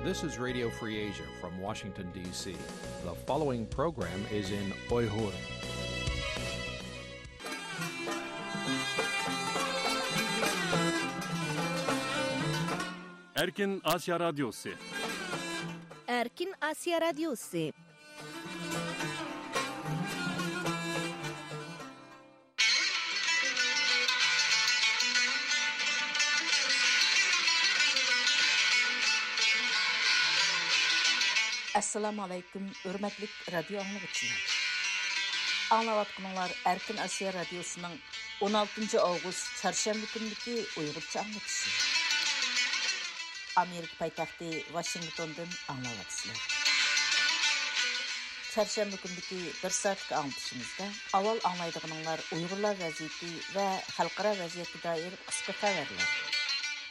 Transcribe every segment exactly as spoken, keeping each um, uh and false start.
This is Radio Free Asia from Washington, D C. The following program is in Uyghur. Erkin Asya Radyosu. Erkin Asya Radyosu. ئەسسالامۇ ئەلەيكۇم، ھۆرمەتلىك رادىيو ئاڭلىغۇچىلار. ئاڭلاۋاتقىنىڭلار ئەركىن ئاسىيا رادىيوسىنىڭ ئون ئالتىنچى ئاۋغۇست چارشەنبە كۈنىدىكى ئۇيغۇرچە ئاڭلىتىشى. ئامېرىكا پايتەختى ۋاشىنگتوندىن ئاڭلاۋاتىسىلەر. چارشەنبە كۈنىدىكى بىر سائەتلىك ئاڭلىتىشىمىزدا ئاۋۋال ئاڭلايدىغىنىڭلار ئۇيغۇرلار ۋەزىيىتى ۋە خەلقئارا ۋەزىيەتكە دائىر قىسقا خەۋەرلەر.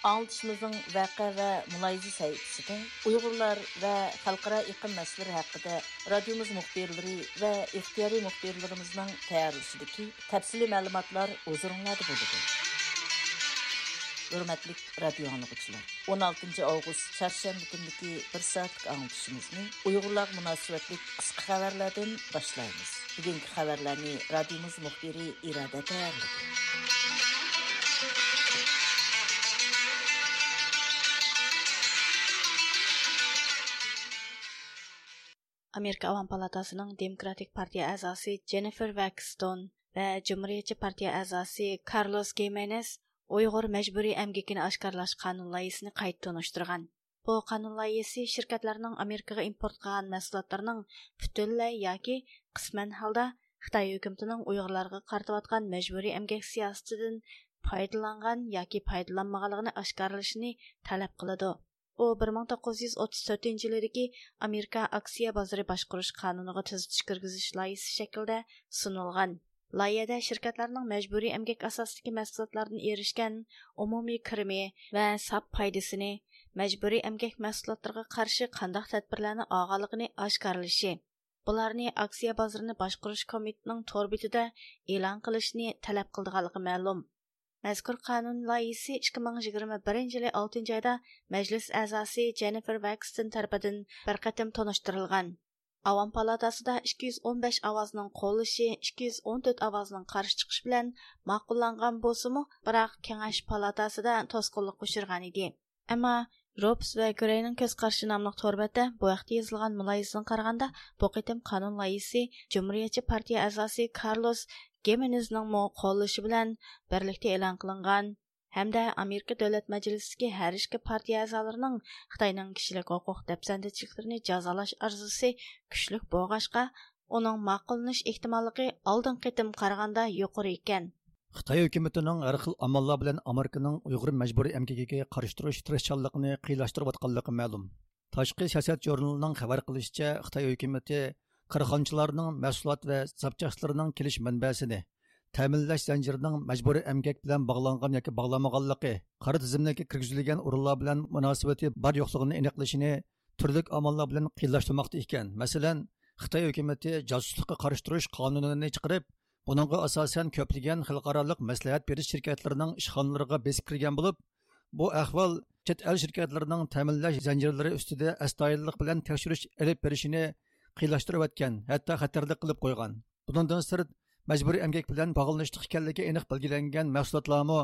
ئاڭلىتىشىمىزنىڭ ۋەقە ۋە مۇلاھىزە سەھىپىسىدە ئۇيغۇرلار ۋە خەلقئارا ئېقىم مەسىلىلىرى ھەققىدە رادىيومىز مۇخبىرلىرى ۋە ئىختىيارىي مۇخبىرلىرىمىزنىڭ تەييارلىشىدىكى تەپسىلىي مەلۇماتلار ھۇزۇرۇڭلاردا بولىدۇ. ھۆرمەتلىك رادىيو ئاڭلىغۇچىلار، ئون ئالتىنچى ئاۋغۇست چارشەنبە كۈنىدىكى بىر سائەتلىك ئاڭلىتىشىمىزنى ئۇيغۇرلارغا مۇناسىۋەتلىك قىسقا خەۋەرلەردىن باشلايمىز. بۈگۈنكى خەۋەرلەرنى رادىيومىز مۇخبىرى ئىرادە تەييارلىدى. ئامېرىكا ئاۋام پالاتاسىنىڭ دېموكراتىك پارتىيە ئەزاسى جېننىفېر ۋاكستون ۋە جۇمھۇرىيەتچى پارتىيە ئەزاسى كارلوس گىمېنېز ئۇيغۇر مەجبۇرىي ئەمگىكىنى ئاشكارىلاش قانۇن لايىھىسىنى قايتا تونۇشتۇرغان. بۇ قانۇن لايىھىسى شىركەتلەرنىڭ ئامېرىكىغا ئىمپورت قىلغان مەھسۇلاتلىرىنىڭ پۈتۈنلەي ياكى قىسمەن ھالدا خىتاي ھۆكۈمىتىنىڭ ئۇيغۇرلارغا قارىتىۋاتقان مەجبۇرىي ئەمگەك سىياسىتىدىن پايدىلانغان ياكى پايدىلانمىغانلىقىنى ئاشكارىلىشىنى تەلەپ قىلىدۇ. ئۇ بىر مىڭ توققۇز يۈز ئوتتۇز تۆتىنچى يىلىدىكى ئامېرىكا ئاكسىيە بازىرى باشقۇرۇش قانۇنىغا تۈزىتىش كىرگۈزۈش لايىھىسى شەكلىدە سۇنۇلغان. لايىھەدە شىركەتلەرنىڭ مەجبۇرىي ئەمگەك ئاساسىدىكى مەھسۇلاتلاردىن ئېرىشكەن ئومۇمىي كىرىمى ۋە ساپ پايدىسىنى، مەجبۇرىي ئەمگەك مەھسۇلاتلىرىغا قارشى قانداق تەدبىرلەرنى ئالغانلىقىنى ئاشكارىلىشى، بۇلارنى ئاكسىيە بازىرىنى باشقۇرۇش كومىتېتىنىڭ تور بېتىدە ئېلان قىلىشنى تەلەپ قىلىدىغانلىقى مەلۇم. مەزكۇر قانۇن لايىھىسى ئىككى مىڭ يىگىرمە بىرىنچى يىلى ئالتىنچى ئايدا مەجلىس ئەزاسى جېننىفېر ۋاكستون تەرىپىدىن بىر قېتىم تونۇشتۇرۇلغان. ئاۋام پالاتاسىدا ئىككى يۈز ئون بەش ئاۋازنىڭ قوللىشى، ئىككى يۈز ئون تۆت ئاۋازنىڭ قارشى چىقىشى بىلەن ماقۇللانغان بولسىمۇ، بىراق كېڭەش پالاتاسىدا توسقۇنلۇققا ئۇچرىغان ئىدى. ئەمما روپس ۋە گرېينىڭ كۆز قارىشى ناملىق تور بەتتە بۇ ھەقتە يېزىلغان مۇلاھىزىسىغا قارىغاندا، بۇ قېتىم قانۇن لايىھىسى جۇمھۇرىيەتچى پارتىيە ئەزاسى كارلوس گىمېنېزنىڭمۇ قوللىشى بىلەن بىرلىكتە ئېلان قىلىنغان ھەمدە ئامېرىكا دۆلەت مەجلىسىدىكى ھەر ئىككى پارتىيە ئەزالىرىنىڭ خىتاينىڭ كىشىلىك ھوقۇق دەپسەندىچىلىكلىرىنى جازالاش ئارزۇسى كۈچلۈك بولغاچقا، ئۇنىڭ ماقۇللىنىش ئېھتىماللىقى ئالدىنقى قېتىم قارىغاندا يۇقىرى ئىكەن. خىتاي ھۆكۈمىتىنىڭ ھەر خىل ئاماللار بىلەن ئامېرىكىنىڭ ئۇيغۇر مەجبۇرىي ئەمگىكىگە قارشى تۇرۇش تىرىشچانلىقىنى قىيىنلاشتۇرۇۋاتقانلىقى مەلۇم. تاشقى سىياسەت ژۇرنىلىنىڭ خەۋەر قىلىشىچە، خىتاي ھۆكۈمىتى كارخانىچىلارنىڭ مەھسۇلات ۋە زاپچاسلىرىنىڭ كېلىش مەنبەسىنى، تەمىنلەش زەنجىرىنىڭ مەجبۇرىي ئەمگەك بىلەن باغلانغان ياكى باغلانمىغانلىقى، قارا تىزىملىككە كىرگۈزۈلگەن ئورۇنلار بىلەن مۇناسىۋىتى بار يوقلۇقىنى ئېنىقلىشىنى تۈرلۈك ئاماللار بىلەن قىيىنلاشتۇرماقتا ئىكەن. مەسىلەن، خىتاي ھۆكۈمىتى جاسۇسلۇققا قارشى تۇرۇش قانۇنىنى چىقىرىپ، بۇنىڭغا ئاساسەن كۆپلىگەن خەلقئارالىق مەسلىھەت بېرىش شىركەتلىرىنىڭ ئىشخانىلىرىغا بېسىپ كىرگەن بولۇپ، بۇ ئەھۋال چەت ئەل شىركەتلىرىنىڭ تەمىنلەش زەنجىرلىرى ئۈستىدە ئەستايىدىللىق بىلەن تەكشۈرۈش ئېلىپ بېرىشىنى قىيىنلاشتۇرۇۋەتكەن، ھەتتا خەتەرلىك قىلىپ قويغان. بۇنىڭدىن سىرت، مەجبۇرىي ئەمگەك بىلەن باغلىنىشلىق ئىكەنلىكى ئېنىق بەلگىلەنگەن مەھسۇلاتلارمۇ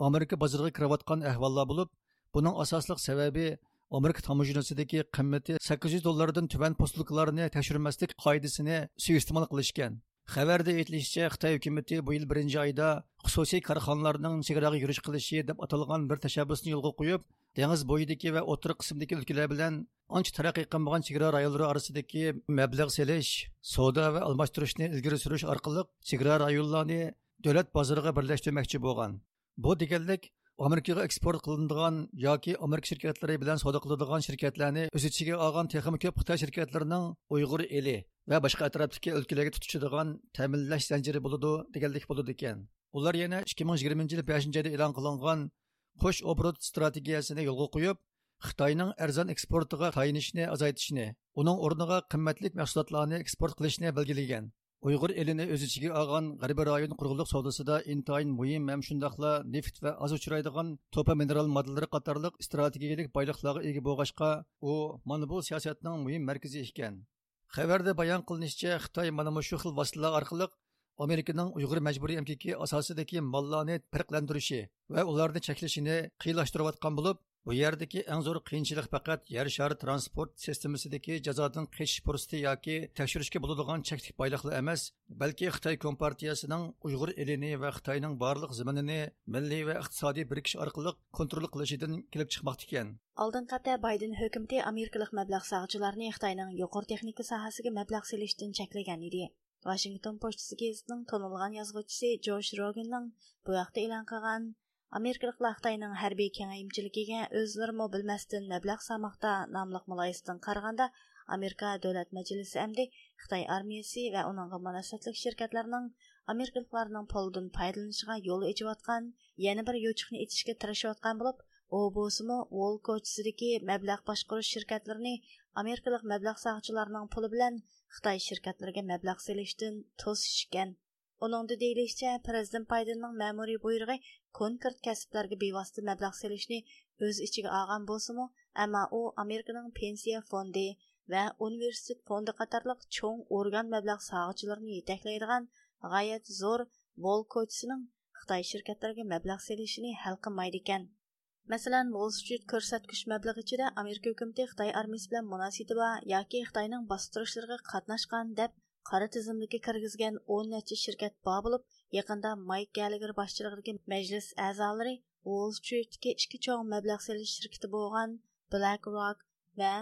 ئامېرىكا بازىرىغا كىرىۋاتقان ئەھۋاللار بولۇپ، بۇنىڭ ئاساسلىق سەۋەبى ئامېرىكا تاموژنىسىدىكى قىممىتى سەككىز يۈز دوللاردىن تۆۋەن پوستلۇقلارنى تەكشۈرمەسلىك قائىدىسىنى سۇيىئىستېمال قىلىشكەن. خەۋەردە ئېيتىلىشىچە، خىتاي ھۆكۈمىتى بۇ يىل بىرىنچى ئايدا خۇسۇسىي كارخانىلارنىڭ چېگراغا يۈرۈش قىلىشى دەپ ئاتالغان بىر تەشەببۇسنى يولغا قويۇپ، دېڭىز بويىدىكى ۋە ئوتتۇرا قىسىمدىكى ئۆلكىلەر بىلەن ئانچە تەرەققىي قىلمىغان چېگرا رايونلىرى ئارىسىدىكى مەبلەغ سېلىش، سودا ۋە ئالماشتۇرۇشنى ئىلگىرى سۈرۈش ئارقىلىق چېگرا رايونلارنى دۆلەت بازىرىغا بىرلەشتۈرمەكچى بولغان. بۇ دېگەنلىك، ئامېرىكىغا ئېكسپورت قىلىنىدىغان ياكى ئامېرىكا شىركەتلىرى بىلەن سودا قىلىدىغان شىركەتلەرنى ئۆز ئىچىگە ئالغان تېخىمۇ كۆپ خىتاي شىركەتلىرىنىڭ ئۇيغۇر ئېلى ۋە باشقا ئەتراپتىكى ئۆلكىلەرگە تۇتىشىدىغان تەمىنلەش زەنجىرى بولىدۇ دېگەنلىك بولىدىكەن. ئۇلار يەنە ئىككى مىڭ يىگىرمىنچى يىل بەشىنچى ئايدا ئېلان قىلىنغان قوش ئوبوروت ئىستراتېگىيەسىنى يولغا قويۇپ، خىتاينىڭ ئەرزان ئېكسپورتىغا تايىنىشنى ئازايتىشنى، ئۇنىڭ ئورنىغا قىممەتلىك مەھسۇلاتلارنى ئېكسپورت قىلىشنى بەلگىلىگەن. ئۇيغۇر ئېلىنى ئۆز ئىچىگە ئالغان غەربىي رايون قۇرغۇنلۇق سودىسىدا ئىنتايىن مۇھىم ھەم شۇنداقلا نېفىت ۋە ئاز ئۇچرايدىغان توپا مىنېرال ماددىلىرى قاتارلىق ئىستراتېگىيەلىك بايلىقلارغا ئىگە بولغاچقا، ئۇ مانا بۇ سىياسەتنىڭ مۇھىم مەركىزى ئىكەن. خەۋەردە بايان قىلىنىشىچە، خىتاي مانا مۇشۇ خىل ۋاسىتىلەر ئارقىلىق ئامېرىكىنىڭ ئۇيغۇر مەجبۇرىي ئەمگىكى ئاساسىدىكى ماللارنى پەرقلەندۈرۈشى ۋە ئۇلارنى چەكلىشىنى قىيىنلاشتۇرۇۋاتقان بولۇپ، بۇ يەردىكى ئەڭ زور قىيىنچىلىق پەقەت يەر شارى ترانسپورت سىستېمىسىدىكى جازادىن قېچىش پۇرسىتى ياكى تەكشۈرۈشكە بولىدىغان چەكلىك بايلىقلا ئەمەس، بەلكى خىتاي كومپارتىيەسىنىڭ ئۇيغۇر ئېلىنى ۋە خىتاينىڭ بارلىق زېمىنىنى مىللىي ۋە ئىقتىسادىي بىرىكىش ئارقىلىق كونترول قىلىشىدىن كېلىپ چىقماقتا ئىكەن. ئالدىنقى ھەپتە بايدېن ھۆكۈمىتى ئامېرىكىلىق مەبلەغ سالغۇچىلارنى خىتاينىڭ يۇقىرى تېخنىكا ساھەسىگە مەبلەغ سېلىشتىن چەكلىگەن ئىدى. ۋاشىنگتون پوچتىسى گېزىتىنىڭ تونۇلغان يازغۇچىسى جوش روگېننىڭ بۇ ھەقتە ئېلان قىلغان، ئامېرىكىلىقلار خىتاينىڭ ھەربىي كېڭەيمىچىلىكىگە ئۆزلىرىمۇ بىلمەستىن مەبلەغ سالماقتا ناملىق مۇلاھىزىسىدىن قارىغاندا، ئامېرىكا دۆلەت مەجلىسى ئەمدى خىتاي ئارمىيىسى ۋە ئۇنىڭغا مۇناسىۋەتلىك شىركەتلەرنىڭ ئامېرىكىلىقلارنىڭ پۇلىدىن پايدىلىنىشىغا يول ئېچىۋاتقان يەنە بىر يوچۇقنى ئېچىشكە تىرىشىۋاتقان بولۇپ، ئۇ بولسىمۇ ۋول كوچىسىدىكى مەبلەغ باشقۇرۇش شىركەتلىرىنى ئامېرىكىلىق مەبلەغ سالغۇچىلارنىڭ پۇلى بىلەن خىتاي شىركەتلىرىگە مەبلەغ سېلىشتىن توسۇش ئىكەن. ئۇنىڭدا دېيىلىشىچە، پىرېزىدېنت بايدېننىڭ مەمۇرىي بۇيرۇقى كونكرېت كەسىپلەرگە بىۋاسىتە مەبلەغ سېلىشنى ئۆز ئىچىگە ئالغان بولسىمۇ، ئەمما ئۇ ئامېرىكىنىڭ پېنسىيە فوندى ۋە ئۇنىۋېرسىتېت فوندى قاتارلىق چوڭ ئورگان مەبلەغ سالغۇچىلىرىنى يېتەكلەيدىغان غايەت زور ۋول كوچىسىنىڭ خىتاي شىركەتلىرىگە مەبلەغ سېلىشىنى ھەل قىلمايدىكەن. مەسىلەن، ۋول سترىت كۆرسەتكۈچ مەبلىغى ئىچىدە ئامېرىكا ھۆكۈمىتى خىتاي ئارمىيىسى بىلەن مۇناسىۋىتى بار ياكى خىتاينىڭ باستۇرۇشلىرىغا قاتناشقان دەپ قارا تىزىملىككە كىرگۈزگەن ئون نەچچە شىركەت بار بولۇپ، يېقىندا مايك گەللېگېر باشچىلىقىدىكى مەجلىس ئەزالىرى ۋول سترىتتىكى ئىككى چوڭ مەبلەغ سېلىش شىركىتى بولغان بىلەك روك ۋە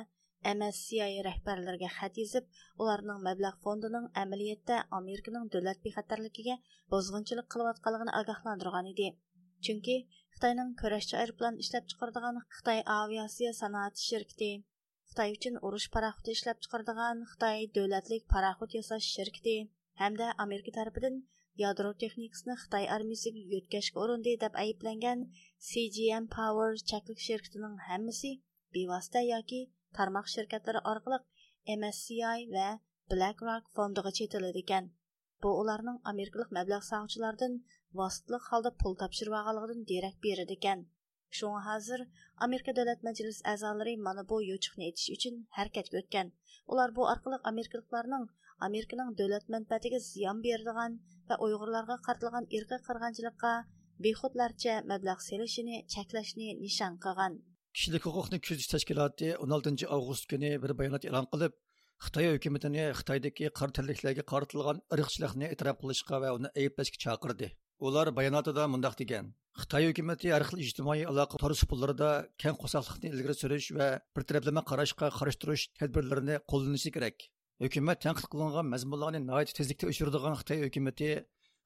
ئېم ئېس سى ئاي رەھبەرلىرىگە خەت يېزىپ، ئۇلارنىڭ مەبلەغ فوندىنىڭ ئەمەلىيەتتە ئامېرىكىنىڭ دۆلەت بىخەتەرلىكىگە بۇزغۇنچىلىق قىلىۋاتقانلىقىنى ئاگاھلاندۇرغان ئىدى. چۈنكى خىتاينىڭ كۈرەشچى ئايروپىلان ئىشلەپچىقىرىدىغان خىتاي ئاۋىئاتسىيە سانائەت شىركىتى، خىتاي ئۈچۈن ئۇرۇش پاراخوتى ئىشلەپچىقىرىدىغان خىتاي دۆلەتلىك پاراخوت ياساش شىركىتى ھەمدە ئامېرىكا تەرىپىدىن يادرو تېخنىكىسىنى خىتاي ئارمىيىسىگە يۆتكەشكە ئۇرۇندى دەپ ئەيىبلەنگەن سى جي ئېم پاۋېر چەكلىك شىركىتىنىڭ ھەممىسى بىۋاسىتە ياكى تارماق شىركەتلىرى ئارقىلىق ئېم ئېس سى ئاي ۋە بىلەك روك فوندىغا چېتىلىدىكەن. بۇ ئۇلارنىڭ ئامېرىكىلىق مەبلەغ سالغۇچىلاردىن ۋاسىتىلىك ھالدا پۇل تاپشۇرۇۋالغانلىقىدىن دېرەك بېرىدىكەن. شۇڭا ھازىر ئامېرىكا دۆلەت مەجلىس ئەزالىرى مانا بۇ يوچۇقنى ئېچىش ئۈچۈن ھەرىكەتكە ئۆتكەن. ئۇلار بۇ ئارقىلىق ئامېرىكىلىقلارنىڭ ئامېرىكىنىڭ دۆلەت مەنپەئەتىگە زىيان بېرىدىغان ۋە ئۇيغۇرلارغا قارىتىلغان ئىرقىي قىرغىنچىلىققا بىخۇدلارچە مەبلەغ سېلىشىنى چەكلەشنى نىشان قىلغان. كىشىلىك ھوقۇقنى كۆزىتىش تەشكىلاتى ئون ئالتىنچى ئاۋغۇست كۈنى بىر بايانات ئېلان قىلىپ، خىتاي ھۆكۈمىتىنى خىتايدىكى قارا تەنلىكلەرگە قارىتىلغان ئىرقچىلىقنى ئېتىراپ قىلىشقا ۋە ئۇنى ئەيىبلەشكە چاقىردى. ئۇلار باياناتىدا مۇنداق دېگەن: خىتاي ھۆكۈمىتى ھەر خىل ئىجتىمائىي ئالاقە تور سۇپىلىرىدا كەڭ قورساقلىقنى ئىلگىرى سۈرۈش ۋە بىر تەرەپلىمە قاراشقا قارشى تۇرۇش تەدبىرلىرىنى قوللىنىشى كېرەك. ھۆكۈمەت تەنقىد قىلىنغان مەزمۇنلارنى ناھايىتى تېزلىكتە ئۆچۈرىدىغان خىتاي ھۆكۈمىتى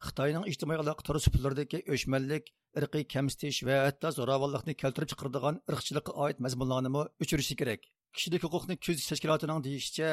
خىتاينىڭ ئىجتىمائىي ئالاقە تور سۇپىلىرىدىكى ئۆچمەنلىك، ئىرقىي كەمسىتىش ۋە ھەتتا زوراۋانلىقنى كەلتۈرۈپ چىقىرىدىغان ئىرقچىلىققا ئائىت مەزمۇنلارنىمۇ ئۆچۈرۈشى كېرەك. كىشىلىك ھوقۇقنى كۆزىتىش تەشكىلاتىنىڭ دېيىشىچە،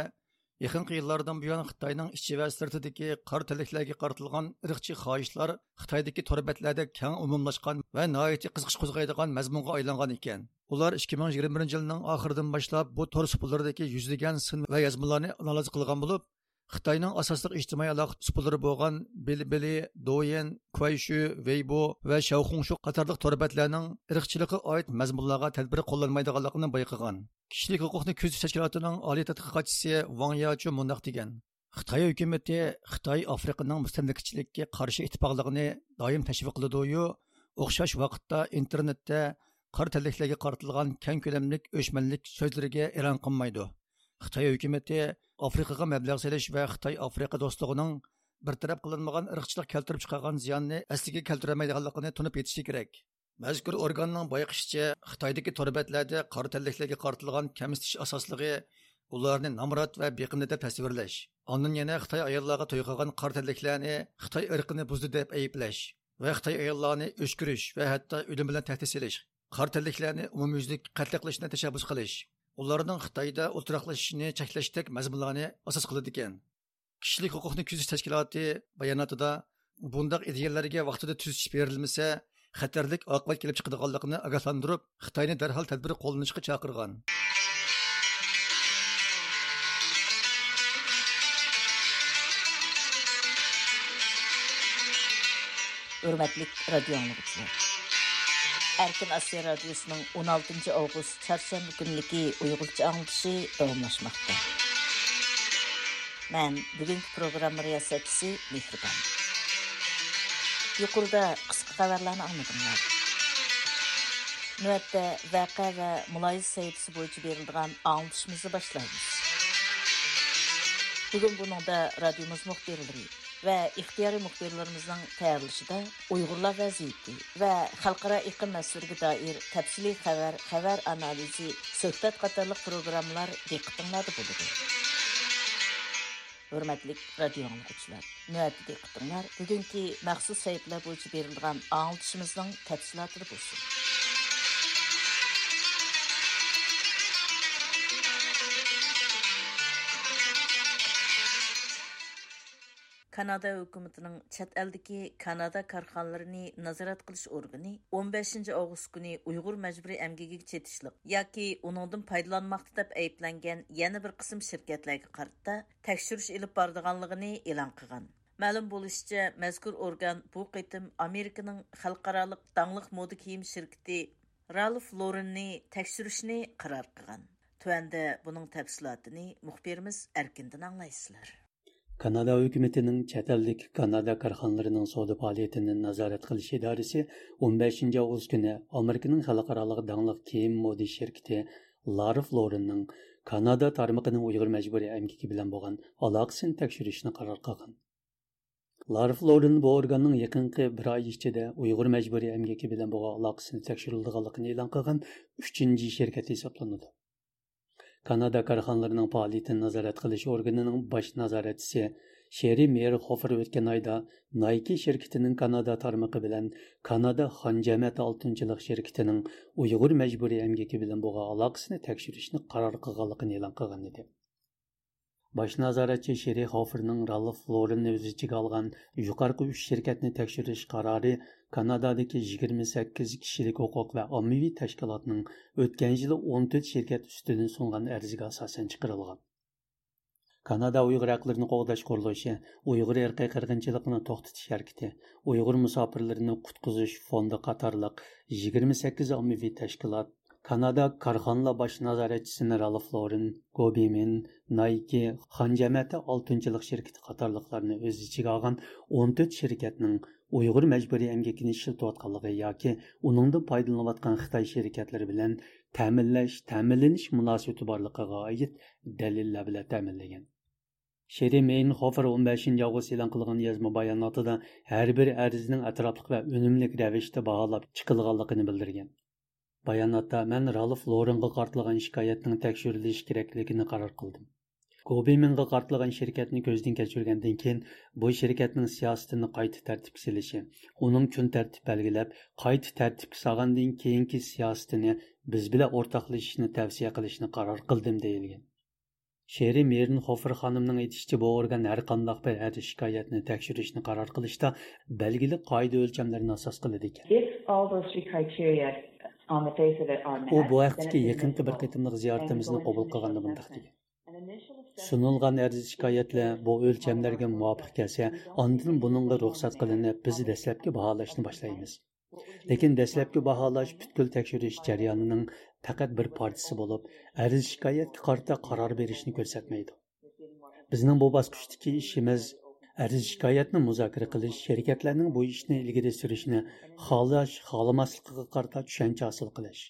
يېقىنقى يىللاردىن بۇيان خىتاينىڭ ئىچى ۋە سىرتىدىكى قارا تەنلىكلەرگە قارىتىلغان ئىرقچى خاھىشلار خىتايدىكى تور بەتلەردە كەڭ ئومۇملاشقان ۋە ناھايىتى قىزىقىش قوزغايدىغان مەزمۇنغا ئايلانغان ئىكەن. ئۇلار ئىككى مىڭ يىگىرمە بىرىنچى يىلنىڭ ئاخىرىدىن باشلاپ بۇ تور سۇپىلىرىدىكى يۈزلىگەن سىن ۋە يازمىلارنى ئانالىز قىلغان بولۇپ، خىتاينىڭ ئاساسلىق ئىجتىمائىي ئالاقە سۇپىلىرى بولغان بىلىبىلى، دويىن، كۇەيشۈ، ۋېيبو ۋە شياۋخۇڭشۇ قاتارلىق تور بەتلەرنىڭ ئىرقچىلىققا ئائىت مەزمۇنلارغا تەدبىر قوللانمايدىغانلىقىنى بايقىغان. كىشىلىك ھوقۇقنى كۆزىتىش تەشكىلاتىنىڭ ئالىي تەتقىقاتچىسى ۋاڭ ياچۇ مۇنداق دېگەن: خىتاي ھۆكۈمىتى خىتاي ئافرىقىنىڭ مۇستەملىكىچىلىككە قارشى ئىتتىپاقلىقىنى دائىم تەشۋىق قىلىدۇ-يۇ، ئوخشاش ۋاقىتتا ئىنتېرنېتتە قارا تەنلىكلەرگە قارىتىلغان كەڭ كۆلەملىك ئۆچمەنلىك سۆزلىرىگە ئېلان قىلمايدۇ. خىتاي ھۆكۈمىتى ئافرىقىغا مەبلەغ سېلىش ۋە خىتاي ئافرىقا دوستلۇقىنىڭ بىر تەرەپ قىلىنمىغان ئىرقچىلىق كەلتۈرۈپ چىقارغان زىياننى ئەسلىگە كەلتۈرەلمەيدىغانلىقىنى تونۇپ يېتىشى كېرەك. مەزكۇر ئورگاننىڭ بايقىشىچە، خىتايدىكى تور بەتلەردە قارا تەنلىكلەرگە قارىتىلغان كەمسىتىش ئاساسلىقى ئۇلارنى نامرات ۋە بېقىندى دەپ تەسۋىرلەش، ئاندىن يەنە خىتاي ئاياللارغا توي قىلغان قارا تەنلىكلەرنى خىتاي ئىرقىنى بۇزدى دەپ ئەيىبلەش ۋە خىتاي ئاياللارنى ئۆچ كۆرۈش ۋە ھەتتا ئۆلۈم بىلەن تەھدىت سېلىش، قارا تەنلىكلەرنى ئومۇميۈزلۈك قەتلى قىلىشنى تەشەببۇس قىلىش، ئۇلارنىڭ خىتايدا ئولتۇراقلىشىشىنى چەكلەشتەك مەزمۇنلارنى ئاساس قىلىدىكەن. كىشىلىك ھوقۇقنى كۆزىتىش تەشكىلاتى باياناتىدا، بۇنداق ئىدىيەلەرگە ۋاقتىدا تۈزىتىش بېرىلمىسە، خەتەرلىك ئاقىۋەت كېلىپ چىقىدىغانلىقىنى ئاگاھلاندۇرۇپ، خىتاينى دەرھال تەدبىر قوللىنىشقا چاقىرغان. ھۆرمەتلىك رادىيو ئاڭلىغۇچىلار! ئەركىن ئاسىيا رادىيوسىنىڭ ئون ئالتىنچى ئاۋغۇست چارشەنبە كۈنلۈكى ئۇيغۇرچە ئاڭلىتىشى داۋاملاشماقتا. مەن بۈگۈنكى پروگرامما رىياسەتچىسى مېھرىبان. يۇقىرىدا قىسقا خەۋەرلەرنى ئاڭلىدىڭلار. نۆۋەتتە ۋەقە ۋە مۇلاھىزە سەھىپىسى بويىچە بېرىلىدىغان ئاڭلىتىشىمىزنى باشلايمىز. بۈگۈن بۇنىڭدا رادىيومىز مۇخبىرلىرى ۋە ئىختىيارىي مۇخبىرلىرىمىزنىڭ تەييارلىشىدا ئۇيغۇرلار ۋەزىيىتى ۋە خەلقئارا ئېقىم مەسىلىگە دائىر تەپسىلىي خەۋەر، خەۋەر ئانالىزى، سۆھبەت قاتارلىق پروگراممىلار دىققىتىڭلاردا بولىدۇ. ھۆرمەتلىك رادىيو ئاڭلىغۇچىلار، نۆۋەتتە دىققىتىڭلار بۈگۈنكى مەخسۇس سەھىپىلەر بويىچە بېرىلىدىغان ئاڭلىتىشىمىزنىڭ تەپسىلاتىدا بولسۇن. كانادا ھۆكۈمىتىنىڭ چەت ئەلدىكى كانادا كارخانىلىرىنى نازارەت قىلىش ئورگىنى ئون بەشىنچى ئاۋغۇست كۈنى ئۇيغۇر مەجبۇرىي ئەمگىكىگە چېتىشلىق ياكى ئۇنىڭدىن پايدىلانماقتا دەپ ئەيىبلەنگەن يەنە بىر قىسىم شىركەتلەرگە قارىتا تەكشۈرۈش ئېلىپ بارىدىغانلىقىنى ئېلان قىلغان. مەلۇم بولۇشىچە، مەزكۇر ئورگان بۇ قېتىم ئامېرىكىنىڭ خەلقئارالىق داڭلىق مودا كىيىم شىركىتى رالف لورېننى تەكشۈرۈشنى قارار قىلغان. تۆۋەندە بۇنىڭ تەپسىلاتىنى مۇخبىرىمىز ئەركىندىن ئاڭلايسىلەر. كانادا ھۆكۈمىتىنىڭ چەت ئەلدىكى كانادا كارخانىلىرىنىڭ سودا پائالىيىتىنى نازارەت قىلىش ئىدارىسى ئون بەشىنچى ئاۋغۇست كۈنى ئامېرىكىنىڭ خەلقئارالىق داڭلىق كىيىم مودا شىركىتى لارف لورېننىڭ كانادا تارمىقىنىڭ ئۇيغۇر مەجبۇرىي ئەمگىكى بىلەن بولغان ئالاقىسىنى تەكشۈرۈشنى قارار قىلغان. لارف لورېن بۇ ئورگاننىڭ يېقىنقى بىر ئاي ئىچىدە ئۇيغۇر مەجبۇرىي ئەمگىكى بىلەن بولغان ئالاقىسىنى تەكشۈرۈلىدىغانلىقىنى ئېلان قىلغان ئۈچىنچى شىركەت ھېسابلىنىدۇ. كانادا كارخانىلىرىنىڭ پائالىيىتىنى نازارەت قىلىش ئورگىنىنىڭ باش نازارەتچىسى شېرى مېيرخوفېر ئۆتكەن ئايدا نايكى شىركىتىنىڭ كانادا تارمىقى بىلەن كانادا خان جەمەتى ئالتۇنچىلىق شىركىتىنىڭ ئۇيغۇر مەجبۇرىي ئەمگىكى بىلەن بولغان ئالاقىسىنى تەكشۈرۈشنى قارار قىلغانلىقىنى ئېلان قىلغان ئىدى. باش نازارەتچى شېرى خوفېرنىڭ رالف لورېننى ئۆز ئىچىگە ئالغان يۇقارقى ئۈچ شىركەتنى تەكشۈرۈش قارارى كانادادىكى يىگىرمە سەككىز كىشىلىك ھوقۇق ۋە ئاممىۋى تەشكىلاتنىڭ ئۆتكەن يىلى ئون تۆت شىركەت ئۈستىدىن سۇنغان ئەرزىگە ئاساسەن چىقىرىلغان. كانادا ئۇيغۇر ھەقلىرىنى قوغداش قۇرۇلۇشى، ئۇيغۇر ئىرقىي قىرغىنچىلىقىنى توختىتىش ھەرىكىتى، ئۇيغۇر مۇساپىرلىرىنى قۇتقۇزۇش فوندى قاتارلىق يىگىرمە سەككىز ئاممىۋى تەشكىلات، كانادا كارخانىلار باش نازارەتچىسىنى رالف لورېن، گوبىمىن، نايكى، خان جەمەتى ئالتۇنچىلىق شىركىتى قاتارلىقلارنى ئۆز ئىچىگە ئالغان ئون تۆت شىركەتنىڭ ئۇيغۇر مەجبۇرىي ئەمگىكىنى ئىشلىتىۋاتقانلىقى ياكى ئۇنىڭدىن پايدىلىنىۋاتقان خىتاي شىركەتلىرى بىلەن تەمىنلەش، تەمىنلىنىش مۇناسىۋىتى بارلىقىغا ئائىت دەلىللەر بىلەن تەمىنلىگەن. شېرى مېينخوفېر ئون بەشىنچى ئاۋغۇست ئېلان قىلغان يازما باياناتىدا ھەر بىر ئەرزنىڭ ئەتراپلىق ۋە ئۈنۈملۈك رەۋىشتە باھالاپ چىقىلغانلىقىنى بىلدۈرگەن. باياناتتا، مەن رالف لورېنغا قارىتىلغان شىكايەتنىڭ تەكشۈرۈلۈشى كېرەكلىكىنى قارار قىلدىم. گوبىمىنغا قارىتىلغان شىركەتنى كۆزدىن كەچۈرگەندىن كېيىن، بۇ شىركەتنىڭ سىياسىتىنى قايتا تەرتىپكە سېلىشى، ئۇنىڭ كۈن تەرتىپ بەلگىلەپ، قايتا تەرتىپكە سالغاندىن كېيىنكى سىياسىتىنى بىز بىلەن ئورتاقلىشىشنى تەۋسىيە قىلىشنى قارار قىلدىم، دېيىلگەن. شېرى مېرنخوفېر خانىمنىڭ ئېيتىشىچە، بۇ ئورگان ھەر قانداق بىر ئەرز شىكايەتنى تەكشۈرۈشنى قارار قىلىشتا بەلگىلىك قائىدە ئۆلچەملىرىنى ئاساس قىلىدىكەن. If all those three criteria on the face of it are met, ئۇ بۇ ھەقتىكى يېقىنقى بىر قېتىملىق زىيارىتىمىزنى قوبۇل قىلغاندا مۇنداق دېگەن: سۇنۇلغان ئەرز شىكايەتلەر بۇ ئۆلچەملەرگە مۇۋاپىق كەلسە، ئاندىن بۇنىڭغا رۇخسەت قىلىنىپ، بىز دەسلەپكى باھالاشنى باشلايمىز. لېكىن دەسلەپكى باھالاش پۈتكۈل تەكشۈرۈش جەريانىنىڭ پەقەت بىر پارچىسى بولۇپ، ئەرز شىكايەتكە قارىتا قارار بېرىشنى كۆرسەتمەيدۇ. بىزنىڭ بۇ باسقۇچتىكى ئىشىمىز ئەرز شىكايەتنى مۇزاكىرە قىلىش، شىركەتلەرنىڭ بۇ ئىشنى ئىلگىرى سۈرۈشنى خالاش، خالىماسلىقىغا قارىتا چۈشەنچە ھاسىل قىلىش.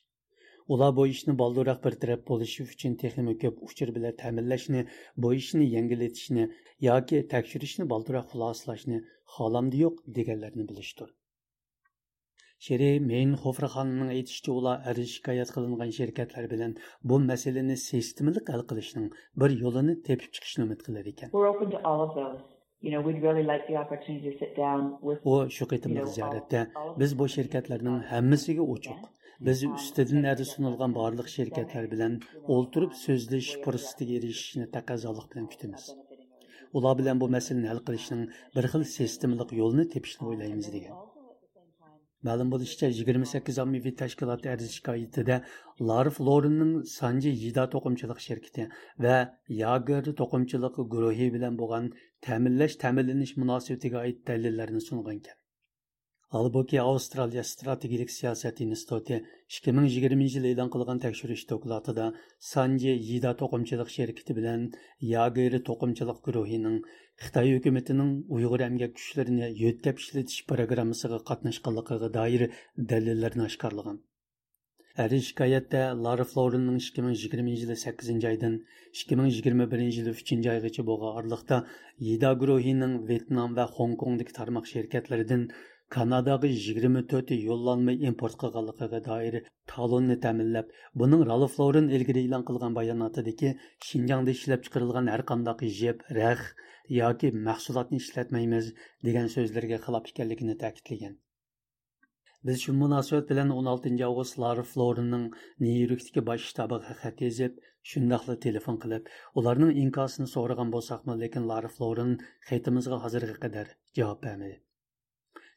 ئۇلار بۇ ئىشنى بالدۇرراق بىر تەرەپ بولۇشى ئۈچۈن تېخىمۇ كۆپ ئۇچۇر بىلەن تەمىنلەشنى، بۇ ئىشنى يەڭگىللىتىشنى ياكى تەكشۈرۈشنى بالدۇرراق خۇلاسىلاشنى خالامدۇ يوق دېگەنلەرنى بىلىشتۇر. شېرى مېينخوفېر خانىمنىڭ ئېيتىشىچە، ئۇلار ئەرز شىكايەت قىلىنغان شىركەتلەر بىلەن بۇ مەسىلىنى سىستېمىلىق ھەل قىلىشنىڭ بىر يولىنى تېپىپ چىقىشنى ئۈمىد قىلىدىكەن. We're open to all of those. You know, we'd really like the opportunity to sit down with, ئۇ شۇ قېتىملىق زىيارەتتە بىز بۇ شىركەتلەرنىڭ ھەممىسىگە ئوچۇق، بىز ئۈستىدىن ئەرز سۇنۇلغان بارلىق شىركەتلەر بىلەن ئولتۇرۇپ سۆزلىشىش پۇرسىتىگە ئېرىشىشنى تەقەززالىق بىلەن كۈتىمىز. ئۇلار بىلەن بۇ مەسىلىنى ھەل قىلىشنىڭ بىر خىل سىستېمىلىق يولىنى تېپىشنى ئويلايمىز، دېگەن. مەلۇم بولۇشىچە، يىگىرمە سەككىز ئاممىۋى تەشكىلات ئەرز شىكايىتىدە لارف لورېننىڭ سانجى يىدا توقۇمىچىلىق شىركىتى ۋە ياگېر توقۇمىچىلىق گۇرۇھى بىلەن بولغان تەمىنلەش، تەمىنلىنىش مۇناسىۋىتىگە ئائىت دەلىللەرنى سۇنغانىكەن. ھالبۇكى، ئاۋسترالىيە ئىستراتېگىيىلىك سىياسەت ئىنستىتۇتى ئىككى مىڭ يىگىرمىنچى يىلى ئېلان قىلغان تەكشۈرۈش دوكلاتىدا سانجى يىدا توقۇمىچىلىق شىركىتى بىلەن ياگېر توقۇمىچىلىق گۇرۇھىنىڭ خىتاي ھۆكۈمىتىنىڭ ئۇيغۇر ئەمگەك كۈچلىرىنى يۆتكەپ ئىشلىتىش پىروگراممىسىغا قاتناشقانلىقىغا دائىر دەلىللەرنى ئاشكارىلىغان. ئەرز شىكايەتتە لارا فلورىننىڭ ئىككى مىڭ يىگىرمىنچى يىلى سەككىزىنچى ئايدىن ئىككى مىڭ يىگىرمە بىرىنچى يىلى ئۈچىنچى ئايغىچە بولغان ئارىلىقتا يىدا گۇرۇھىنىڭ ۋيېتنام ۋە خوڭكوڭدىكى تارماق شىركەتلىرىدىن كاناداغا يىگىرمە تۆت يوللانما ئىمپورت قىلغانلىقىغا دائىر تالوننى تەمىنلەپ، بۇنىڭ رالف لورېن ئىلگىرى ئېلان قىلغان باياناتىدىكى شىنجاڭدا ئىشلەپچىقىرىلغان ھەرقانداق يىپ، رەخ ياكى مەھسۇلاتنى ئىشلەتمەيمىز دېگەن سۆزلىرىگە خىلاپ ئىكەنلىكىنى تەكىتلىگەن. بىز شۇ مۇناسىۋەت بىلەن ئون ئالتىنچى ئاۋغۇست لارا فلورېننىڭ نيۇ يوركتىكى باش شتابىغا خەت يېزىپ، شۇنداقلا تېلېفون قىلىپ، ئۇلارنىڭ ئىنكاسىنى سورىغان بولساقمۇ، لېكىن لارا فلورېن خېتىمىزغا ھازىرغا قەدەر جاۋاب بەرمىدى.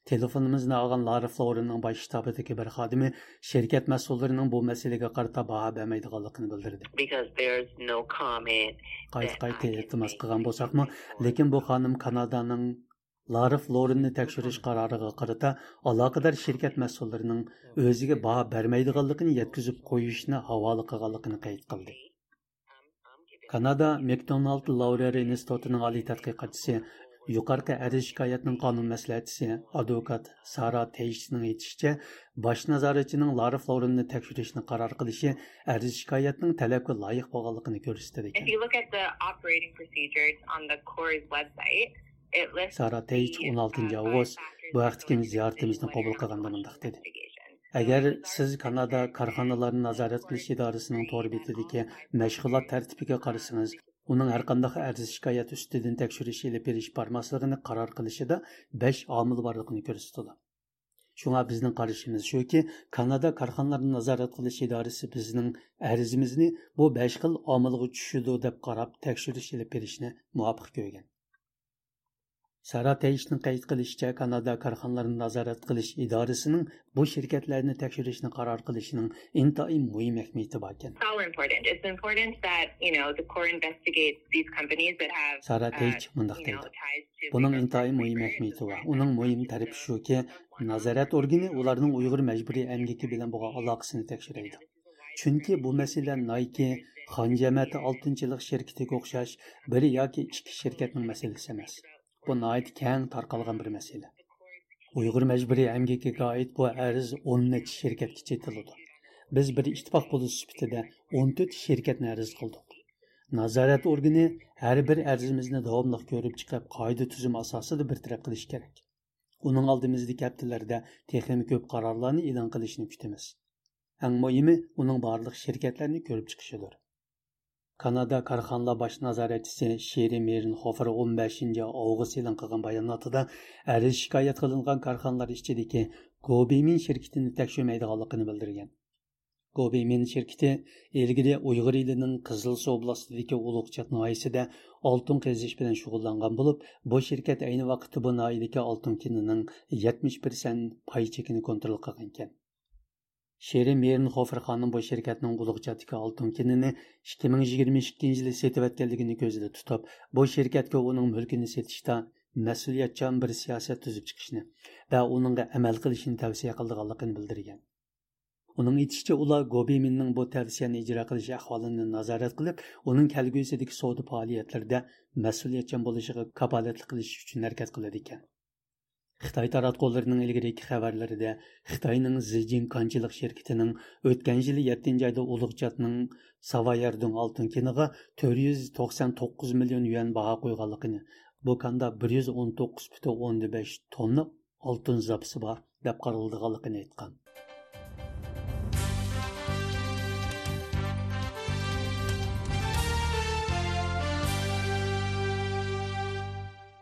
تېلېفونىمىزنى ئالغان لارا فلورېننىڭ باش شتابىدىكى بىر خادىمى شىركەت مەسئۇللىرىنىڭ بۇ مەسىلىگە قارىتا باھا بەرمەيدىغانلىقىنى بىلدۈردى. Because there's no comment قايتا-قايتا ئىلتىماس قىلغان بولساقمۇ، لېكىن بۇ خانىم كانادانىڭ لارا فلورېننى تەكشۈرۈش قارارىغا قارىتا ئالاقىدار شىركەت مەسئۇللىرىنىڭ ئۆزىگە باھا بەرمەيدىغانلىقىنى يەتكۈزۈپ قويۇشنى ھاۋالە قىلغانلىقىنى قەيت قىلدى. كانادا ماكدونالد لاۋرېر ئىنستىتۇتىنىڭ ئالىي تەتقىقاتچىسى، يۇقىرىقى ئەرز شىكايەتنىڭ قانۇن مەسلىھەتچىسى، ئادۋوكات سارا تېيچنىڭ ئېيتىشىچە، باش نازارەتچىنىڭ لارا فلورېننى تەكشۈرۈشنى قارار قىلىشى ئەرز شىكايەتنىڭ تەلەپكە لايىق بولغانلىقىنى كۆرسىتىدىكەن. If you look at the operating procedures on the Core's website, it lists سارا تېيچ ئون ئالتىنچى ئاۋغۇست بۇ ھەقتىكى زىيارىتىمىزنى قوبۇل قىلغاندا مۇنداق دېدى. ئەگەر سىز كانادا كارخانىلارنى نازارەت قىلىش ئىدارىسىنىڭ تور بېتىدىكى مەشغۇلات تەرتىپىگە قارىسىڭىز، ئۇنىڭ ھەرقانداق ئەرز شىكايەت ئۈستىدىن تەكشۈرۈش ئېلىپ بېرىش بارماسلىقىنى قارار قىلىشىدا بەش ئامىل بارلىقىنى كۆرسىتىدۇ. شۇڭا بىزنىڭ قارىشىمىز شۇكى، كانادا كارخانىلارنى نازارەت قىلىش ئىدارىسى بىزنىڭ ئەرزىمىزنى بۇ بەش خىل ئامىلغا چۈشىدۇ دەپ قاراپ تەكشۈرۈش ئېلىپ بېرىشنى مۇۋاپىق كۆرگەن. سارا تېيچنىڭ قەيت قىلىشىچە، كانادا كارخانىلارنى نازارەت قىلىش ئىدارىسىنىڭ بۇ شىركەتلەرنى تەكشۈرۈشنى قارار قىلىشىنىڭ ئىنتايىن مۇھىم ئەھمىيىتى باركەن. It's all important. It's important that, you know, the Core investigates these companies that have سارا تېيچ مۇنداق دەيدۇ. بۇنىڭ ئىنتايىن مۇھىم ئەھمىيىتى بار. ئۇنىڭ مۇھىم تەرىپى شۇكى، نازارەت ئورگىنى ئۇلارنىڭ ئۇيغۇر مەجبۇرىي ئەمگىكى بىلەن بولغان ئالاقىسىنى تەكشۈرەيدۇ. چۈنكى بۇ مەسىلە نايكى، خان جەمەتى ئالتۇن چىلىق شىركىتىگە ئوخشاش بىر ياكى ئىككى شىركەتنىڭ مەسىلىسى ئەمەس. بۇ ناھايىتى كەڭ تارقالغان بىر مەسىلە. ئۇيغۇر مەجبۇرىي ئەمگىكىگە ئائىت بۇ ئەرز ئون نەچچە شىركەتكە چېتىلىدۇ. بىز بىر ئىتتىپاق بولۇش سۈپىتىدە ئون تۆت شىركەتنى ئەرز قىلدۇق. نازارەت ئورگىنى ھەر بىر ئەرزىمىزنى داۋاملىق كۆرۈپ چىقىپ، قائىدە تۈزۈم ئاساسىدا بىر تەرەپ قىلىشى كېرەك. ئۇنىڭ ئالدىمىزدىكى ھەپتىلەردە تېخىمۇ كۆپ قارارلارنى ئېلان قىلىشىنى كۈتىمىز. ئەڭ مۇھىمى، ئۇنىڭ بارلىق شىركەتلەرنى كۆرۈپ چىقىشىدۇر. كانادا كارخانىلار باش نازارەتچىسى شېرى مېرنخوفېر ئون بەشىنچى ئاۋغۇست ئېلان قىلغان باياناتىدا ئەرز شىكايەت قىلىنغان كارخانىلار ئىچىدىكى گوبىمىن شىركىتىنى تەكشۈرمەيدىغانلىقىنى بىلدۈرگەن. گوبىمىن شىركىتى ئىلگىرى ئۇيغۇر ئېلىنىڭ قىزىلسۇ ئوبلاستىدىكى ئۇلۇغچات ناھىيەسىدە ئالتۇن قېزىش بىلەن شۇغۇللانغان بولۇپ، بۇ شىركەت ئەينى ۋاقىتتا بۇ ناھىيەدىكى ئالتۇن كېنىنىڭ يەتمىش پىرسەنت پاي چېكىنى كونترول قىلغانىكەن. شېرى مېرنخوفېر خانىم بۇ شىركەتنىڭ ئۇلۇغچاتتىكى ئالتۇن كېنىنى ئىككى مىڭ يىگىرمە ئىككىنچى يىلى سېتىۋەتكەنلىكىنى كۆزدە تۇتۇپ، بۇ شىركەتكە ئۇنىڭ مۈلكىنى سېتىشتا مەسئۇلىيەتچان بىر سىياسەت تۈزۈپ چىقىشنى ۋە ئۇنىڭغا ئەمەل قىلىشنى تەۋسىيە قىلىدىغانلىقىنى بىلدۈرگەن. ئۇنىڭ ئېيتىشىچە، ئۇلار گوبىمىننىڭ بۇ تەۋسىيەنى ئىجرا قىلىش ئەھۋالىنى نازارەت قىلىپ، ئۇنىڭ كەلگۈسىدىكى سودا پائالىيەتلىرىدە مەسئۇلىيەتچان بولۇشىغا كاپالەتلىك قىلىش ئۈچۈن ھەرىكەت قىلىدىكەن. خىتاي تاراتقۇلىرىنىڭ ئىلگىرىكى خەۋەرلىرىدە خىتاينىڭ زىجىڭ كانچىلىق شىركىتىنىڭ ئۆتكەن يىلى يەتتىنچى ئايدا ئۇلۇغچاتنىڭ ساۋايەردۇڭ ئالتۇن كېنىغا تۆت يۈز توقسان توققۇز مىليون يۈەن باھا قويغانلىقىنى، بۇ كاندا بىر يۈز ئون توققۇز پۈتۈن ئوندىن بەش توننا ئالتۇن زاپىسى بار دەپ قارىلىدىغانلىقىنى ئېيتقان.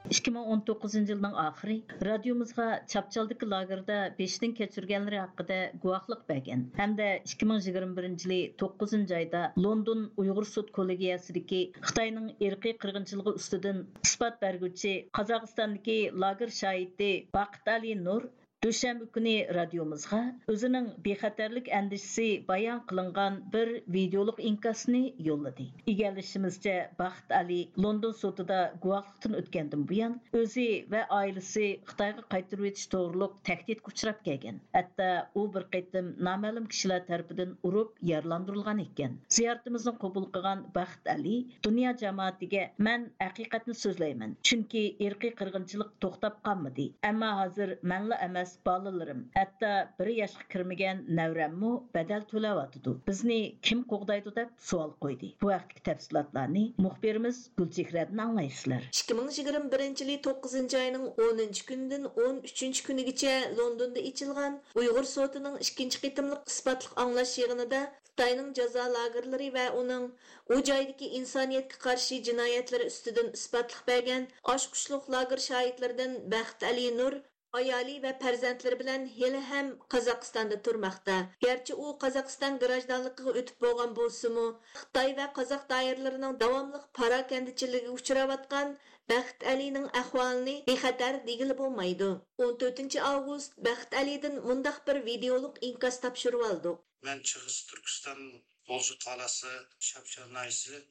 ئىككى مىڭ ئون توققۇزىنچى يىلنىڭ ئاخىرى رادىيومىزغا چاپچالدىكى لاگېردا بېشىدىن كەچۈرگەنلىرى ھەققىدە گۇۋاھلىق بەرگەن ھەمدە ئىككى مىڭ يىگىرمە بىرىنچى يىلى توققۇزىنچى ئايدا لوندون ئۇيغۇر سۇد كوللېگىيەسىدىكى خىتاينىڭ ئىرقىي قىرغىنچىلىقى ئۈستىدىن ئىسپات بەرگۈچى قازاقىستاندىكى لاگېر شاھىتى باقىتئالى نۇر دۈشەنبە كۈنى رادىيومىزغا ئۆزىنىڭ بىخەتەرلىك ئەندىشىسى بايان قىلىنغان بىر ۋىدېئولۇق ئىنكاسنى يوللىدى. ئىگىلىشىمىزچە، بەخت ئەلى لوندون سوتىدا گۇۋاھلىقتىن ئۆتكەندىن بۇيان، ئۆزى ۋە ئائىلىسى خىتايغا قايتۇرۇۋېتىش توغرۇلۇق تەھدىتكە ئۇچراپ كەلگەن. ھەتتا ئۇ بىر قېتىم نامەلۇم كىشىلەر تەرىپىدىن ئۇرۇپ يارىلاندۇرۇلغان ئىكەن. زىيارىتىمىزنى قوبۇل قىلغان بەخت ئەلى دۇنيا جامائىتىگە، مەن ھەقىقەتنى سۆزلەيمەن، چۈنكى ئىرقىي قىرغىنچىلىق توختاپ قالمىدى. ئەمما ھازىر مەنلا ئەمەس، بالىلىرىم، ھەتتا بىر ياشقا كىرمىگەن نەۋرەممۇ بەدەل تۆلەۋاتىدۇ. بىزنى كىم قوغدايدۇ دەپ سوئال قويدى. بۇ ھەقتىكى تەپسىلاتلارنى مۇخبىرىمىز گۈلچېھرەدىن ئاڭلايسىلەر. ئىككى مىڭ يىگىرمە بىرىنچى يىلى توققۇزىنچى ئاينىڭ ئونىنچى كۈنىدىن ئون ئۈچىنچى كۈنىگىچە لوندوندا ئېچىلغان ئۇيغۇر سوتىنىڭ ئىككىنچى قېتىملىق ئىسپاتلىق ئاڭلاش يىغىنىدا خىتاينىڭ جازا لاگېرلىرى ۋە ئۇنىڭ ئۇ جايدىكى ئىنسانىيەتكە قارشى جىنايەتلىرى ئۈستىدىن ئىسپاتلىق بەرگەن ئاچقۇچلۇق لاگېر شاھىتلىرىدىن بەخت ئەلى نۇر، ئايالى ۋە پەرزەنتلىرى بىلەن ھېلىھەم قازاقىستاندا تۇرماقتا. گەرچە ئۇ قازاقىستان گراژدانلىقىغا ئۆتۈپ بولغان بولسىمۇ، خىتاي ۋە قازاق دائىرىلىرىنىڭ داۋاملىق پاراكەندىچىلىكىگە ئۇچراۋاتقان بەخت ئەلىنىڭ ئەھۋالىنى بىخەتەر دېگىلى بولمايدۇ. ئون تۆتىنچى ئاۋغۇست بەخت ئەلىدىن مۇنداق بىر ۋىدېئولۇق ئىنكاس تاپشۇرۇۋالدۇق. مەن شەرقىي تۈركىستان غۇلجا قالاسى، شەمشەر ناھىيەسى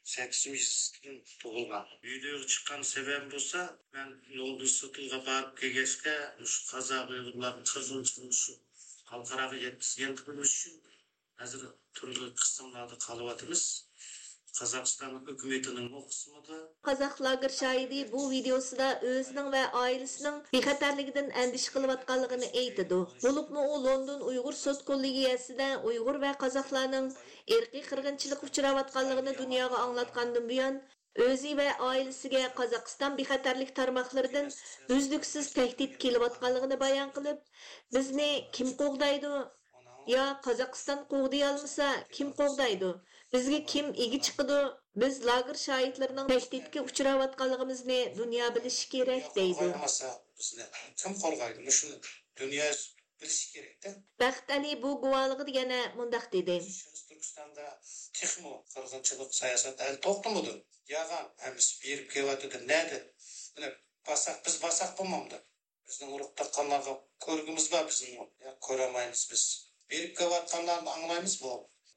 سەككىزىنچى يېزىسىدىن تۇغۇلغان. ۋىدېئوغا چىققان سەۋەبىم بولسا، مەن لوندون سوتىغا بارىپ كەلگەچكە، مۇشۇ قازاق ئۇيغۇرلارنىڭ قىرغىنچىلىقىنى شۇ خەلقئاراغا يەتكۈزگەن قىلمىش ئۈچۈن ھازىر تۈرلۈك قىسىملاردا قالىۋاتىمىز. قازاقىستان ھۆكۈمىتىنىڭمۇ قىسمىدا. قازاق لاگېر شاھىتى بۇ ۋىدېئوسىدا ئۆزىنىڭ ۋە ئائىلىسىنىڭ بىخەتەرلىكىدىن ئەندىشە قىلىۋاتقانلىقىنى ئېيتىدۇ. بولۇپمۇ ئۇ لوندون ئۇيغۇر سوت كوللېگىيەسىدە ئۇيغۇر ۋە قازاقلارنىڭ ئىرقىي قىرغىنچىلىققا ئۇچراۋاتقانلىقىنى دۇنياغا ئاڭلاتقاندىن بۇيان، ئۆزى ۋە ئائىلىسىگە قازاقىستان بىخەتەرلىك تارماقلىرىدىن ئۈزلۈكسىز تەھدىت كېلىۋاتقانلىقىنى بايان قىلىپ، بىزنى كىم قوغدايدۇ؟ يا قازاقىستان قوغدىيالمىسا، كىم قوغدايدۇ؟ بىزگە كىم ئىگە چىقىدۇ؟ بىز لاگېر شاھىتلىرىنىڭ تەھدىتكە ئۇچراۋاتقانلىقىمىزنى دۇنيا بىلىشى كېرەك، دەيدۇ. قوغدايالمىسا، بىزنى كىم قوغدايدۇ؟ مۇشۇنى دۇنيا بىلىشى كېرەكتە. بەخت ئەلى بۇ گۇۋاھلىقىدا يەنە مۇنداق دېدى. شەرقىي تۈركىستاندا تېخىمۇ قىرغىنچىلىق سىياسەت ھەل توختىمىدۇ. ياغان ھەممىسى بېرىپ كېلىۋاتىدۇ. نەدە؟ مانا باساق، بىز باساق بولمامدۇ؟ بىزنىڭ ئۇرۇق تۇغقانلارغا كۆرگۈمىز بار بىزنىڭ. يا، كۆرەلمەيمىز بىز. بېرىپ كېلىۋاتقانلارنى ئاڭلايمىز بۇ.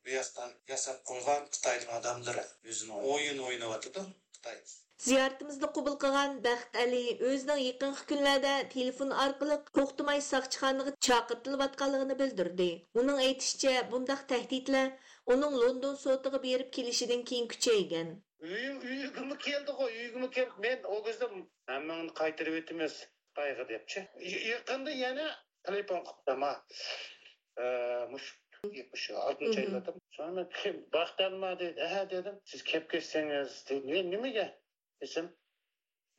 بۇ ياقتان ياساپ قويغان خىتاينىڭ ئادەملىرى ئۆزىنىڭ ئويۇنى ئويناۋاتىدۇ خىتاي. زىيارىتىمىزنى قوبۇل قىلغان بەخت ئەلى ئۆزىنىڭ يېقىنقى كۈنلەردە تېلېفون ئارقىلىق توختىماي ساقچىخانىغا چاقىرتىلىۋاتقانلىقىنى بىلدۈردى. ئۇنىڭ ئېيتىشىچە، بۇنداق تەھدىتلەر ئۇنىڭ لوندون سوتىغا بېرىپ كېلىشىدىن كېيىن كۈچەيگەن. ئۆيۈڭ، ئۆيگىمۇ كەلدىغۇ، ئۆيگىمۇ كېلىپ، مەن ئۇ كۈزدە ھەممىڭنى قايتۇرۇۋېتىمىز خىتايغا دەپچى. ي-، يېقىندا يەنە تېلېفون قىپتۇ ما. ئە، مۇشۇ، مۇشۇ ئالتىنچى ئايلاردا. سوڭرا كىم، بەخت ئەلى ما دېدى. ھە دېدىم. سىز كەپ كەتسەڭىز دېدى. نى-، نېمىگە دېسەم،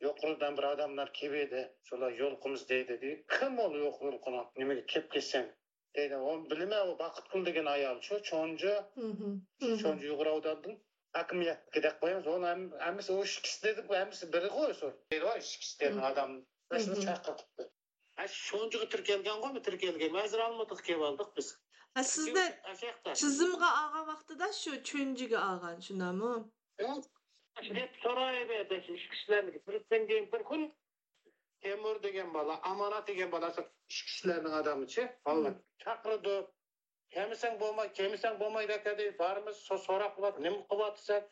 يۇقىرىدىن بىر ئادەملەر كېلىۋىدى. شۇلار يولۇقىمىز دەيدۇ دېدى. كىم ئۇ يولۇقىدىغان؟ نېمىگە كەپ كەتسەڭ؟ دەيدۇ، ئۇنى بىلىمەن، ئۇ باقىتقۇل دېگەن ئايال شۇ، چونجى، چونجى ئۇيغۇر ئاۋۇداندىن ھاكىمىيەتكە دەپ قويىمىز. ئۇنى ھەم-، ھەممىسى ئۇ ئىككىسى دېدۇق، ھەممىسى بىرى غۇ شۇ. دەيدۇ، ئۇ ئىككىسى دېگەن ئادەم شۇنى چاقىرتىپتۇ. ھە، شۇ چونجىغا تىركەلگەنغۇ، تىركەلگەن. ھازىر ئالمۇتىغا كېلىۋالدۇق بىز. ھە، سىزنى چىزىمغا ئالغان ۋاقتىدا شۇ چونجىغا ئالغان، شۇنداقمۇ؟ دەپ سورايۋەردى، ئىككىسىلەرنى. بىرسىدىن كېيىن بىر كۈن تەيمۇر دېگەن بالا، ئامانەت دېگەن بالا، ئىككىسىلەرنىڭ ئادىمىچى، بالىلار چاقىرىدۇ. كەلمىسەڭ بولماي، كەلمىسەڭ بولمايدۇ ئەكەدى. بارىمىز، سو-، سوراق قىلىۋاتىدۇ. نېمە قىلىۋاتىسەن؟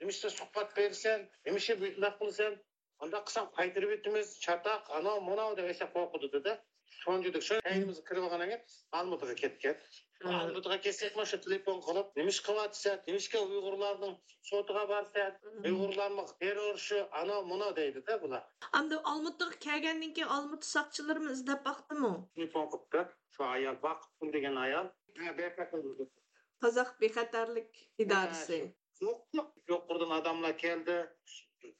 نېمىشقا سۇھبەت بېرىسەن؟ نېمىشقا بۇنداق قىلىسەن؟ ئانداق قىلساڭ قايتۇرۇۋېتىمىز، چاتاق، ئاناۋ، مۇناۋ دەپ ئەشە قورقۇتىدۇ-دە. سونجىدۇق. شۇ كەينىمىزگە كىرىۋالغاندىن كېيىن ئالمۇتىغا كەتكەن. ئالمۇتىغا كەتسەكمۇ شۇ تېلېفون قىلىپ، نېمىشقا قىلىۋاتىسەن؟ نېمىشقا ئۇيغۇرلارنىڭ سوتىغا بارىسەن؟ ئۇيغۇرلارمۇ تېررورچى، ئاناۋ، مۇناۋ دەيدۇ-دە بۇلار. ئەمدى ئالمۇتىغا كەلگەندىن كېيىن ئالمۇتا ساقچىلىرىمۇ ئىزدەپ باقتىمۇ؟ تېلېفون قىپتۇ. شۇ ئايال باقىتقۇل دېگەن ئايال. ھە، بەك قىزىق. قازاق بىخەتەرلىك ئىدارىسى. ھە، شۇ. يوق، يوق. يۇقىرىدىن ئادەملەر كەلدى.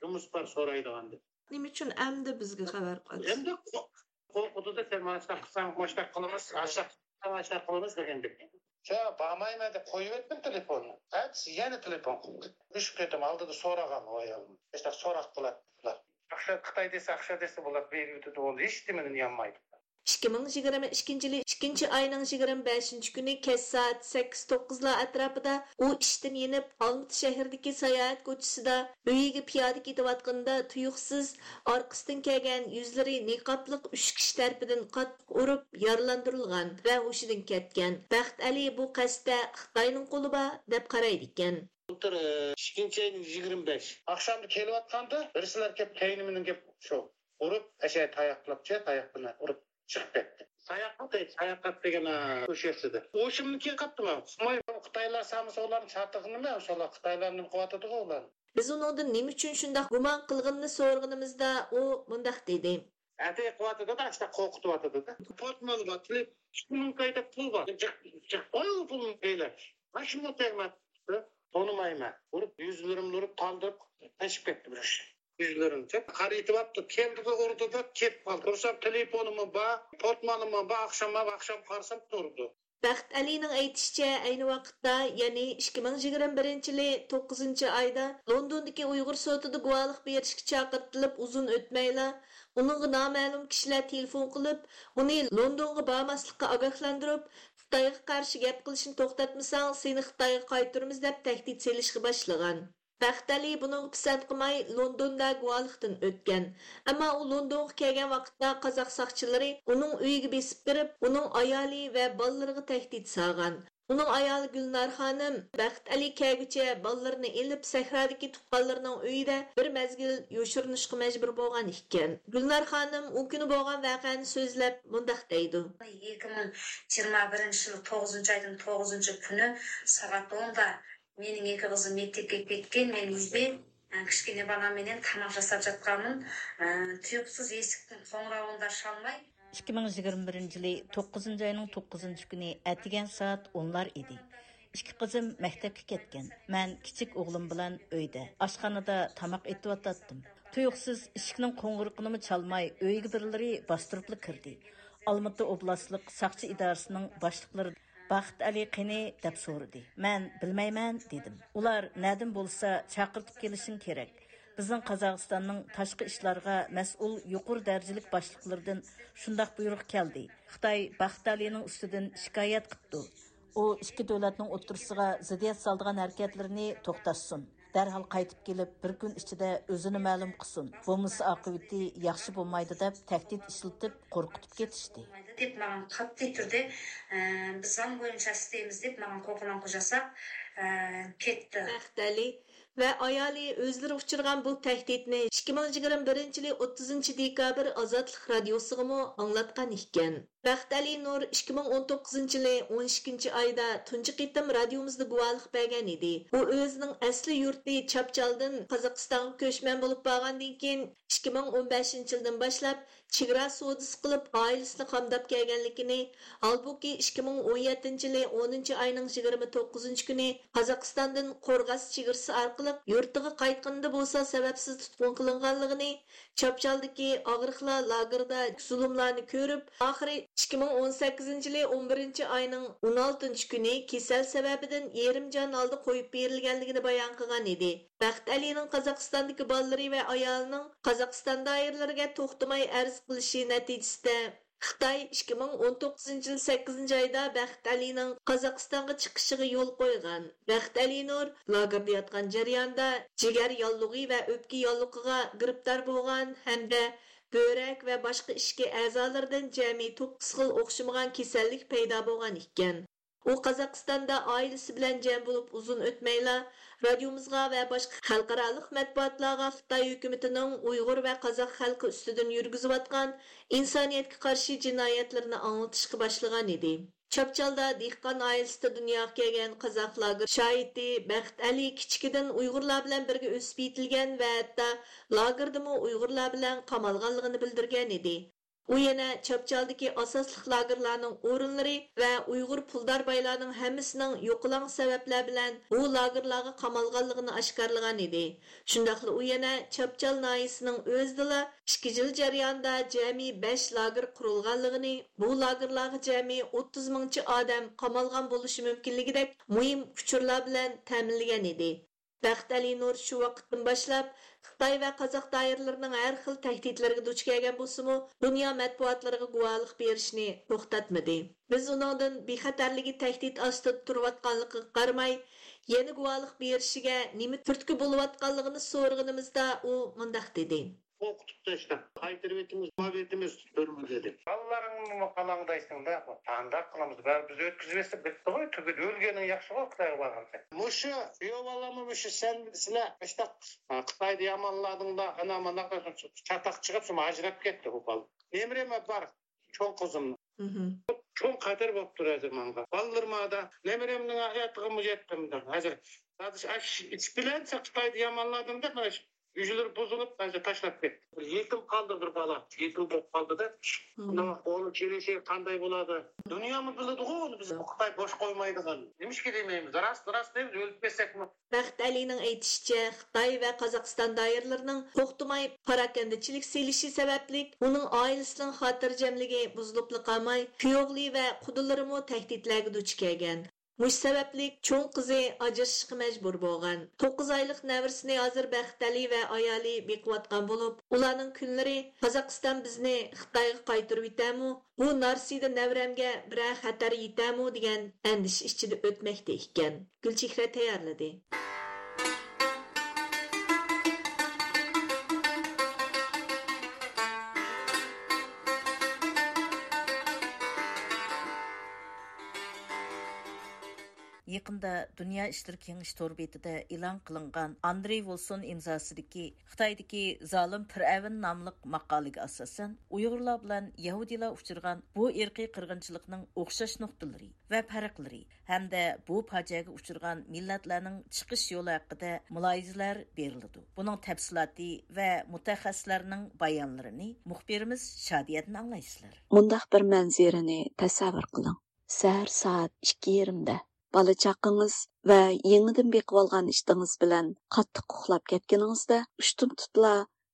جۇمۇس بار سورايدىغان دەپ. نېمە ئۈچۈن ئەمدى بىزگە خەۋەر قىلىسىز؟ ئەمدى قو-، قورقۇتىدۇ، سەن مانا شۇنداق قىلساڭ، مانا شۇنداق قىلىمىز، ئاشۇنداق قىلساڭ، ئاشۇنداق قىلىمىز دېگەندەك. ياق، بارمايمەن دەپ قويۇۋەتتىم تېلېفوننى. ئەتىسى يەنە تېلېفون قىلدى. ئۈچ قېتىم ئالدىدا سورىغان ئۇ ئايالدىن. مۇشۇنداق سوراق قىلاتتى بۇلار. ئاخشا خىتاي دېسە، ئاخشا دېسە بۇلار بېرىۋېتىدۇ، ئۇنى ھېچنېمىدىن يانمايدۇ. ئىككى مىڭ يىگىرمە ئىككىنچى يىلى ئىككىنچى ئاينىڭ يىگىرمە بەشىنچى كۈنى كەچ سائەت سەككىز توققۇزلار ئەتراپىدا ئۇ ئىشتىن يېنىپ، ئالمىتى شەھىرىدىكى ساياھەت كوچىسىدا ئۆيىگە پىيادە كېتىۋاتقىنىدا تۇيۇقسىز ئارقىسىدىن كەلگەن يۈزلىرى نىقابلىق ئۈچ كىشى تەرىپىدىن قاتتىق ئۇرۇپ يارىلاندۇرۇلغان ۋە ھوشىدىن كەتكەن. بەخت ئەلى بۇ قەستتە خىتاينىڭ قولى بار دەپ قارايدىكەن. بۇلتۇر، ئىككىنچى ئاينىڭ يىگىرمە بەش ئاخشامدا كېلىۋاتقاندا، بىرسىلەر كېلىپ كەينىمدىن كېلىپ شۇ ئۇرۇپ، ئەشە تاياقلاپچە، تاياق بىلەن ئۇرۇپ چىقىپ كەتتى. ساياققا تەگ-، ساياققا دېگەن، ئوشۇقسىدى. ھوشۇمنى كېلىپ قاپتىمەن. خىتايلار سامىسا ئۇلارنى چاتىقىنىمەن، شۇلار خىتايلار نېمە قىلىۋاتىدىغۇ ئۇلار. بىز ئۇنىڭدىن نېمە ئۈچۈن شۇنداق گۇمان قىلغىنىنى سورىغىنىمىزدا، ئۇ مۇنداق دېدى. ئەتە قىلىۋاتىدۇ-دە، ئاشۇنداق قورقۇتۇۋاتىدۇ-دە. پورتمونى بار، تېلېپ، ئىككى مىڭ كايدا پۇل بار. جىق، جىق، ئاي، ئۇ پۇلنى بېلەت. ماشىنىمۇ تەگمەپتۇ. تونۇمايمەن. ئۇرۇپ، يۈزلىرىمنى ئۇرۇپ، تالدىرىپ، قېچىپ كەتتى بىر كىشى. يۈزلىرىمنى قارىيتىۋاپتۇ. كەلدىغۇ ئۇردى دەپ كېتىپ قالدى. قارىسام، تېلېفونىمۇ بار، پورتمونىمۇ بار. ئاخشام، ئاخشام قارىسام، تۇرىدۇ. بەخت ئەلىنىڭ ئېيتىشىچە، ئەينى ۋاقىتتا، يەنى ئىككى مىڭ يىگىرمە بىرىنچى يىلى توققۇزىنچى ئايدا لوندوندىكى ئۇيغۇر سوتىدا گۇۋاھلىق بېرىشكە چاقىرتىلىپ ئۇزۇن ئۆتمەيلا، ئۇنىڭغا نامەلۇم كىشىلەر تېلېفون قىلىپ، ئۇنى لوندونغا بارماسلىققا ئاگاھلاندۇرۇپ، خىتايغا قارشى گەپ قىلىشنى توختاتمىساڭ، سېنى خىتايغا قايتۇرىمىز دەپ تەھدىت سېلىشقا باشلىغان. بەخت ئەلى بۇنىڭغا پىسەنت قىلماي، لوندوندا گۇۋاھلىقتىن ئۆتكەن. ئەمما ئۇ لوندونغا كەلگەن ۋاقىتتا قازاق ساقچىلىرى ئۇنىڭ ئۆيىگە بېسىپ كىرىپ، ئۇنىڭ ئايالى ۋە بالىلىرىغا تەھدىت سالغان. ئۇنىڭ ئايالى گۈلنار خانىم بەخت ئەلى كەلگۈچە بالىلىرىنى ئېلىپ، سەھرادىكى تۇغقانلىرىنىڭ ئۆيىدە بىر مەزگىل يوشۇرۇنۇشقا مەجبۇر بولغان ئىكەن. گۈلنار خانىم ئۇ كۈنى بولغان ۋەقەنى سۆزلەپ مۇنداق دەيدۇ. ئىككى مىڭ يىگىرمە بىرىنچى يىل توققۇزىنچى ئايدىن توققۇزىنچى كۈنى سائەت ئوندا مېنىڭ ئىككى قىزىم مەكتەپكە كەتكەن، مەن ئۆيدە، ئە، كىچىككىنە بالام بىلەن تاماق ياساپ ياتقانمەن. ئە، تۇيۇقسىز ئېشىكنىڭ قوڭغۇرىقىنى چالماي. ئىككى مىڭ يىگىرمە بىرىنچى يىلى توققۇزىنچى ئاينىڭ توققۇزىنچى كۈنى ئەتىگەن سائەت ئونلار ئىدى. ئىككى قىزىم مەكتەپكە كەتكەن. مەن كىچىك ئوغلۇم بىلەن ئۆيدە، ئاشخانىدا تاماق ئېتىۋاتاتتىم. تۇيۇقسىز ئىشىكنىڭ قوڭغۇرىقىنىمۇ چالماي، ئۆيگە بىرلىرى باستۇرۇپلا كىردى. ئالمۇتا ئوبلاستلىق ساقچى ئىدارىسىنىڭ باشلىقلىرى بەخت ئەلى قېنى؟ دەپ سورىدى. مەن بىلمەيمەن دېدىم. ئۇلار نەدىن بولسا چاقىرتىپ كېلىشىڭ كېرەك. بىزنىڭ قازاقىستاننىڭ تاشقى ئىشلارغا مەسئۇل يۇقىرى دەرىجىلىك باشلىقلىرىدىن شۇنداق بۇيرۇق كەلدى. خىتاي بەخت ئەلىنىڭ ئۈستىدىن شىكايەت قىپتۇ. ئۇ ئىككى دۆلەتنىڭ ئوتتۇرىسىغا زىددىيەت سالىدىغان ھەرىكەتلىرىنى توختاتسۇن. دەرھال قايتىپ كېلىپ، بىر كۈن ئىچىدە ئۆزىنى مەلۇم قىلسۇن، بولمىسا ئاقىۋىتى ياخشى بولمايدۇ دەپ تەھدىت ئىشلىتىپ، قورقۇتۇپ كېتىشتى. دەپ ماڭا قاتتىق تۇردى. ئە، بىز زام بويىچە ئىستەيمىز دەپ ماڭا قوقۇلاڭ قوجاساق، ئە، كەتتى. بەخت ئەلى ۋە ئايالى ئۆزلىرى ئۇچرىغان بۇ تەھدىتنى ئىككى مىڭ يىگىرمە بىرىنچى يىلى ئوتتۇزىنچى دېكابىر ئازادلىق رادىيوسىغىمۇ ئاڭلاتقان ئىكەن. بەخت ئەلى نۇر ئىككى مىڭ ئون توققۇزىنچى يىلى ئون ئىككىنچى ئايدا تۇنجى قېتىم رادىيومىزدا گۇۋاھلىق بەرگەن ئىدى. ئۇ ئۆزىنىڭ ئەسلى يۇرتى چاپچالدىن قازاقىستانغا كۆچمەن بولۇپ بارغاندىن كېيىن، ئىككى مىڭ ئون بەشىنچى يىلدىن باشلاپ چېگرا سودىسى قىلىپ، ئائىلىسىنى قامداپ كەلگەنلىكىنى، ھالبۇكى، ئىككى مىڭ ئون يەتتىنچى يىلى ئونىنچى ئاينىڭ يىگىرمە توققۇزىنچى كۈنى قازاقىستاندىن قورغاس چېگرىسى ئارقىلىق يۇرتىغا قايتقىنىدا بولسا سەۋەبسىز تۇتقۇن قىلىنغانلىقىنى، چاپچالدىكى ئاغرىقلار لاگېرىدا زۇلۇملارنى كۆرۈپ، ئاخىرى ئىككى مىڭ ئون سەككىزىنچى يىلى ئون بىرىنچى ئاينىڭ ئون ئالتىنچى كۈنى كېسەل سەۋەبىدىن يېرىم جان ھالدا قويۇپ بېرىلگەنلىكىنى بايان قىلغان ئىدى. بەخت ئەلىنىڭ قازاقىستاندىكى بالىلىرى ۋە ئايالىنىڭ قازاقىستان دائىرىلىرىگە توختىماي ئەرز قىلىشى نەتىجىسىدە، خىتاي ئىككى مىڭ ئون توققۇزىنچى يىل سەككىزىنچى ئايدا بەخت ئەلىنىڭ قازاقىستانغا چىقىشىغا يول قويغان. بەخت ئەلى نۇر لاگېردا ياتقان جەريانىدا جىگەر ياللۇغى ۋە ئۆپكە ياللۇغىغا گىرىپتار بولغان ھەمدە بۆرەك ۋە باشقا ئىچكى ئەزالىرىدىن جەمئىي توققۇز خىل ئوخشىمىغان كېسەللىك پەيدا بولغان ئىكەن. ئۇ قازاقىستاندا ئائىلىسى بىلەن جەم بولۇپ ئۇزۇن ئۆتمەيلا، رادىيومىزغا ۋە باشقا خەلقئارالىق مەتبۇئاتلارغا خىتاي ھۆكۈمىتىنىڭ ئۇيغۇر ۋە قازاق خەلقى ئۈستىدىن يۈرگۈزۈۋاتقان ئىنسانىيەتكە قارشى جىنايەتلىرىنى ئاڭلىتىشقا باشلىغان ئىدى. چاپچالدا دېھقان ئائىلىسىدە دۇنياغا كەلگەن قازاق لاگېر شاھىتى بەخت ئەلى كىچىكىدىن ئۇيغۇرلار بىلەن بىرگە ئۆسۈپ يېتىلگەن ۋە ھەتتا لاگېردىمۇ ئۇيغۇرلار بىلەن قامالغانلىقىنى بىلدۈرگەن ئىدى. ئۇ يەنە چاپچالدىكى ئاساسلىق لاگېرلارنىڭ ئورۇنلىرى ۋە ئۇيغۇر پۇلدار بايلارنىڭ ھەممىسىنىڭ يوقىلاڭ سەۋەبلەر بىلەن بۇ لاگېرلارغا قامالغانلىقىنى ئاشكارىلىغان ئىدى. شۇنداقلا ئۇ يەنە چاپچال ناھىيىسىنىڭ ئۆزىدىلا ئىككى يىل جەريانىدا جەمئىي بەش لاگېر قۇرۇلغانلىقىنى، بۇ لاگېرلارغا جەمئىي ئوتتۇز مىڭچە ئادەم قامالغان بولۇشى مۇمكىنلىكىدەك مۇھىم ئۇچۇرلار بىلەن تەمىنلىگەن ئىدى. بەخت ئەلى نۇر شۇ ۋاقىتتىن باشلاپ خىتاي ۋە قازاق دائىرىلىرىنىڭ ھەر خىل تەھدىتلىرىگە دۇچ كەلگەن بولسىمۇ، دۇنيا مەتبۇئاتلىرىغا گۇۋاھلىق بېرىشنى توختاتمىدى. بىز ئۇنىڭدىن بىخەتەرلىكى تەھدىت ئاستىدا تۇرۇۋاتقانلىقىغا قارىماي، يەنە گۇۋاھلىق بېرىشىگە نېمە تۈرتكە بولۇۋاتقانلىقىنى سورىغىنىمىزدا، ئۇ مۇنداق دېدى. قورقۇتۇپ تاشلاپ، قايتۇرۇۋېتىمىز، ماۋېتىمىز تۈرمىگە دېدى. بالىلىرىڭنىمۇ قالاڭدايسەڭ-دە، قانداق قىلىمىز؟ بەرىبىر بىز ئۆتكۈزۈۋەتسەك بىتتىغۇ، تۈگىدى، ئۆلگىنىڭ ياخشىغۇ، خىتايغا بارغانسەن. مۇشۇ كۈيەۋالامۇ مۇشۇ سەن، سىلەر مۇشتاق خىتايدا يامانلادىڭلار، ئانا مانا چاتاق چىقىپ، شۇ ئاجراپ كەتتى ئۇ بالا. نېمىرىمە بار، چوڭ قىزىم. مھم. چوڭ خەتەر بوپتۇ ھازىر ماڭا. بالىلىرىم ئادا، نېمىرىمنىڭ ھاياتىغىمۇ يەتتىم دەپ. ھازىر، ھازىر ئىش، ئىش بىلەن خىتايدا يامانلادىم دەپ، مانا ئۈجلىرى بۇزۇلۇپ، ھازىر تاشلاپ كەتتى. بىر يېتىم قالدى بىر بالا. يېتىم بولۇپ قالدى-دە. مم. ئۇنىڭ قولى چېلىشى قانداق بولىدۇ؟ دۇنيامۇ بىلىدىغۇ ئۇنى بىز خىتاي بوش قويمايدىغان. نېمىشقا دېمەيمىز؟ راست، راست دەيمىز، ئۆلۈپ كەتسەكمۇ. بەخت ئەلىنىڭ ئېيتىشىچە، خىتاي ۋە قازاقىستان دائىرىلىرىنىڭ توختىماي پاراكەندىچىلىك سېلىشى سەۋەبلىك ئۇنىڭ ئائىلىسىنىڭ خاتىرجەملىكى بۇزۇلۇپلا قالماي، كۈيئوغلى ۋە قۇدىلىرىمۇ تەھدىتلەرگە دۇچ كەلگەن. مۇشۇ سەۋەبلىك چوڭ قىزى ئاجرىشىشقا مەجبۇر بولغان. توققۇز ئايلىق نەۋرىسىنى ھازىر بەخت ئەلى ۋە ئايالى بېقىۋاتقان بولۇپ، ئۇلارنىڭ كۈنلىرى «قازاقىستان بىزنى خىتايغا قايتۇرۇۋېتەرمۇ؟ بۇ نارسىدە نەۋرەمگە بىرەر خەتەر يېتەرمۇ؟» دېگەن ئەندىشە ئىچىدە ئۆتمەكتە ئىكەن. گۈلچېھرە تەييارلىدى. يېقىندا دۇنيا ئىشلىرى كېڭىشى تور بېتىدە ئېلان قىلىنغان ئاندرېي ۋولسون ئىمزاسىدىكى خىتايدىكى زالىم پىرئەۋن ناملىق ماقالىگە ئاساسەن، ئۇيغۇرلار بىلەن يەھۇدىيلار ئۇچرىغان بۇ ئىرقىي قىرغىنچىلىقنىڭ ئوخشاش نۇقتىلىرى ۋە پەرقلىرى ھەمدە بۇ پاجىئەگە ئۇچرىغان مىللەتلەرنىڭ چىقىش يولى ھەققىدە مۇلاھىزىلەر بېرىلىدۇ. بۇنىڭ تەپسىلاتى ۋە مۇتەخەسسىسلەرنىڭ بايانلىرىنى مۇخبىرىمىز شادىيەدىن ئاڭلايسىلەر. مۇنداق بىر مەنزىرىنى تەسەۋۋۇر قىلىڭ. سەھەر سائەت ئىككى يېرىمدە بالا-چاقىڭىز ۋە يېڭىدىن بېقىۋالغان ئىتىڭىز بىلەن قاتتىق ئۇخلاپ كەتكىنىڭىزدە، ئۇشتۇمتۇتلا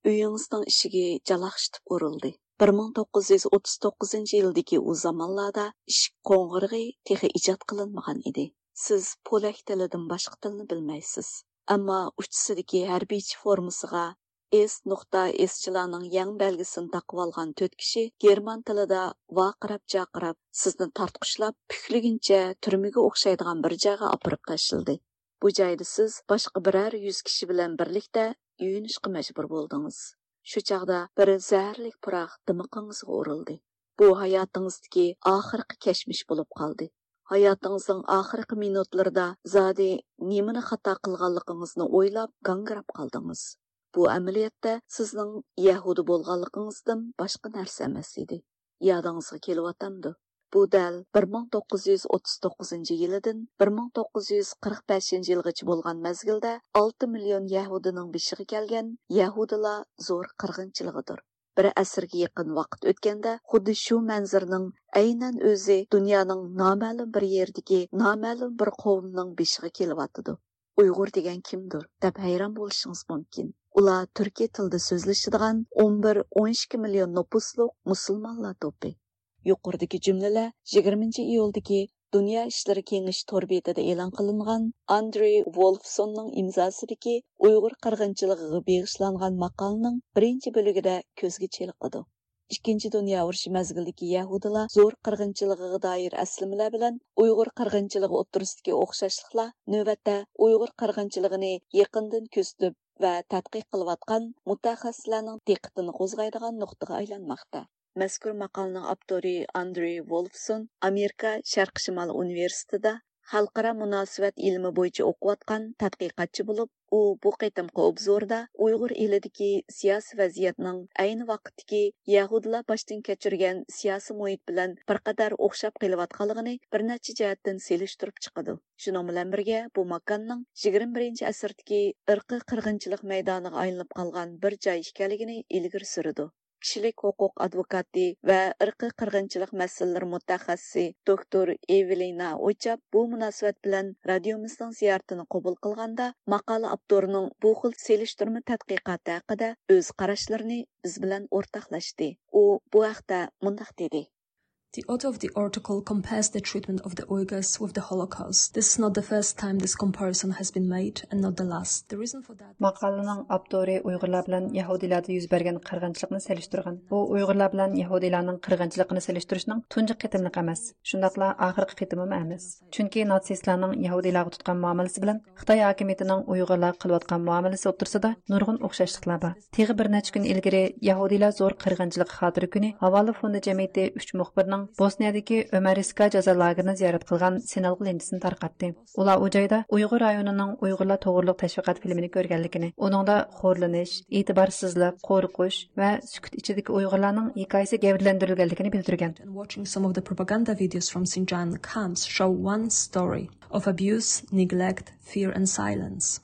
ئۆيىڭىزنىڭ ئىشىكى جالاقشىتىپ ئۇرۇلدى. بىر مىڭ توققۇز يۈز ئوتتۇز توققۇزىنچى يىلدىكى ئۇ زامانلاردا ئىشىك قوڭغۇرىقى تېخى ئىجاد قىلىنمىغان ئىدى. سىز پولەك تىلىدىن باشقا تىلنى بىلمەيسىز. ئەمما ئۇچىسىدىكى ھەربىيچە فورمىسىغا ئېس نۇقتا ئېسچىلارنىڭ يەڭ بەلگىسىنى تاقىۋالغان تۆت كىشى گېرمان تىلىدا ۋارقىراپ-جارقىراپ سىزنى تارتقۇشلاپ، پۈكلىگىنىچە تۈرمىگە ئوخشايدىغان بىر جايغا ئاپىرىپ تاشلىدى. بۇ جايدا سىز باشقا بىرەر يۈز كىشى بىلەن بىرلىكتە يۇيۇنۇشقا مەجبۇر بولدىڭىز. شۇ چاغدا بىر زەھەرلىك پۇراق دىمىقىڭىزغا ئۇرۇلدى. بۇ ھاياتىڭىزدىكى ئاخىرقى كەچمىش بولۇپ قالدى. ھاياتىڭىزنىڭ ئاخىرقى مىنۇتلىرىدا زادى نېمىنى خاتا قىلغانلىقىڭىزنى ئويلاپ گاڭگىراپ قالدىڭىز. بۇ ئەمەلىيەتتە سىزنىڭ يەھۇدىي بولغانلىقىڭىزدىن باشقا نەرسە ئەمەس ئىدى. يادىڭىزغا كېلىۋاتامدۇ؟ بۇ دەل بىر مىڭ توققۇز يۈز ئوتتۇز توققۇزىنچى يىلىدىن بىر مىڭ توققۇز يۈز قىرىق بەشىنچى يىلغىچە بولغان مەزگىلدە ئالتە مىليون يەھۇدىينىڭ بېشىغا كەلگەن يەھۇدىيلار زور قىرغىنچىلىقىدۇر. بىر ئەسىرگە يېقىن ۋاقىت ئۆتكەندە، خۇددى شۇ مەنزىرىنىڭ ئەينەن ئۆزى دۇنيانىڭ نامەلۇم بىر يېرىدىكى نامەلۇم بىر قوۋمنىڭ بېشىغا كېلىۋاتىدۇ. ئۇيغۇر دېگەن كىمدۇر؟ دەپ ھەيران بولۇشىڭىز مۇمكىن. ئۇلار تۈركىي تىلدا سۆزلىشىدىغان ئون بىر، ئون ئىككى مىليون نوپۇسلۇق مۇسۇلمانلار توپى. يۇقىرىدىكى جۈملىلەر يىگىرمىنچى ئىيۇلدىكى دۇنيا ئىشلىرى كېڭىشى تور بېتىدە ئېلان قىلىنغان ئاندرېي ۋولفسوننىڭ ئىمزاسىدىكى ئۇيغۇر قىرغىنچىلىقىغا بېغىشلانغان ماقالىنىڭ بىرىنچى بۆلۈگىدە كۆزگە چېلىقىدۇ. ئىككىنچى دۇنيا ئۇرۇشى مەزگىلىدىكى يەھۇدىيلار زور قىرغىنچىلىقىغا دائىر ئەسلىمىلەر بىلەن ئۇيغۇر قىرغىنچىلىقى ئوتتۇرىسىدىكى ئوخشاشلىقلار نۆۋەتتە ئۇيغۇر قىرغىنچىلىقىنى يېقىندىن كۆزىتىپ ۋە تەتقىق قىلىۋاتقان مۇتەخەسسىسلەرنىڭ دىققىتىنى قوزغايدىغان نۇقتىغا ئايلانماقتا. مەزكۇر ماقالىنىڭ ئاپتورى ئاندرېي ۋولفسون ئامېرىكا شەرقىي شىمال ئۇنىۋېرسىتېتىدا خەلقئارا مۇناسىۋەت ئىلمى بويىچە ئوقۇۋاتقان تەتقىقاتچى بولۇپ، ئۇ بۇ قېتىمقى ئوبزوردا ئۇيغۇر ئېلىدىكى سىياسىي ۋەزىيەتنىڭ ئەينى ۋاقىتتىكى يەھۇدىيلار باشتىن كەچۈرگەن سىياسىي مۇھىت بىلەن بىر قەدەر ئوخشاپ قېلىۋاتقانلىقىنى بىر نەچچە جەھەتتىن سېلىشتۇرۇپ چىقىدۇ. شۇنىڭ بىلەن بىرگە، بۇ ماكاننىڭ يىگىرمە بىرىنچى ئەسىردىكى ئىرقىي قىرغىنچىلىق مەيدانىغا ئايلىنىپ قالغان بىر جاي ئىكەنلىكىنى ئىلگىرى سۈرىدۇ. كىشىلىك ھوقۇق ئادۋوكاتى ۋە ئىرقىي قىرغىنچىلىق مەسىلىلىرى مۇتەخەسسىسى دوكتور ئېۋېلىنا ئوچاپ بۇ مۇناسىۋەت بىلەن رادىيومىزنىڭ زىيارىتىنى قوبۇل قىلغاندا، ماقالە ئاپتورىنىڭ بۇ خىل سېلىشتۇرما تەتقىقاتى ھەققىدە ئۆز قاراشلىرىنى بىز بىلەن ئورتاقلاشتى. ئۇ بۇ ھەقتە مۇنداق دېدى. The author of the article compares the treatment of the Uyghurs with the Holocaust. This is not the first time this comparison has been made and not the last. The reason for that ماقالىنىڭ ئاپتورى ئۇيغۇرلار بىلەن يەھۇدىيلاردا يۈز بەرگەن قىرغىنچىلىقنى سېلىشتۇرغان. بۇ ئۇيغۇرلار بىلەن يەھۇدىيلارنىڭ قىرغىنچىلىقىنى سېلىشتۇرۇشنىڭ تۇنجى قېتىملىقى ئەمەس، شۇنداقلا ئاخىرقى قېتىمىمۇ ئەمەس. چۈنكى ناتسىستلارنىڭ يەھۇدىيلارغا تۇتقان مۇئامىلىسى بىلەن خىتاي ھاكىمىيىتىنىڭ ئۇيغۇرلارغا قىلىۋاتقان مۇئامىلىسى ئوتتۇرىسىدا نۇرغۇن ئوخشاشلىقلار بار. تېخى بىر نەچچە كۈن ئىلگىرى يەھۇدىيلار زور قىرغىنچىلىقى خاتىرە كۈنى ھاۋالە فوندى جەمئىيىتى ئۈچ مۇخبىرنىڭ بوسنىيەدىكى ئۆمەرىسكا جازا لاگېرىنى زىيارەت قىلغان سىنئالغۇ لېنتىسىنى تارقاتتى. ئۇلار ئۇ جايدا ئۇيغۇر رايونىنىڭ ئۇيغۇرلار توغرۇلۇق تەشۋىقات فىلىمىنى كۆرگەنلىكىنى، ئۇنىڭدا خورلىنىش، ئېتىبارسىزلىق، قورقۇش ۋە سۈكۈت ئىچىدىكى ئۇيغۇرلارنىڭ ھېكايىسى گەۋدىلەندۈرۈلگەنلىكىنى بىلدۈرگەن. And watching some of the propaganda videos from Xinjiang camps show one story of abuse, neglect, fear and silence.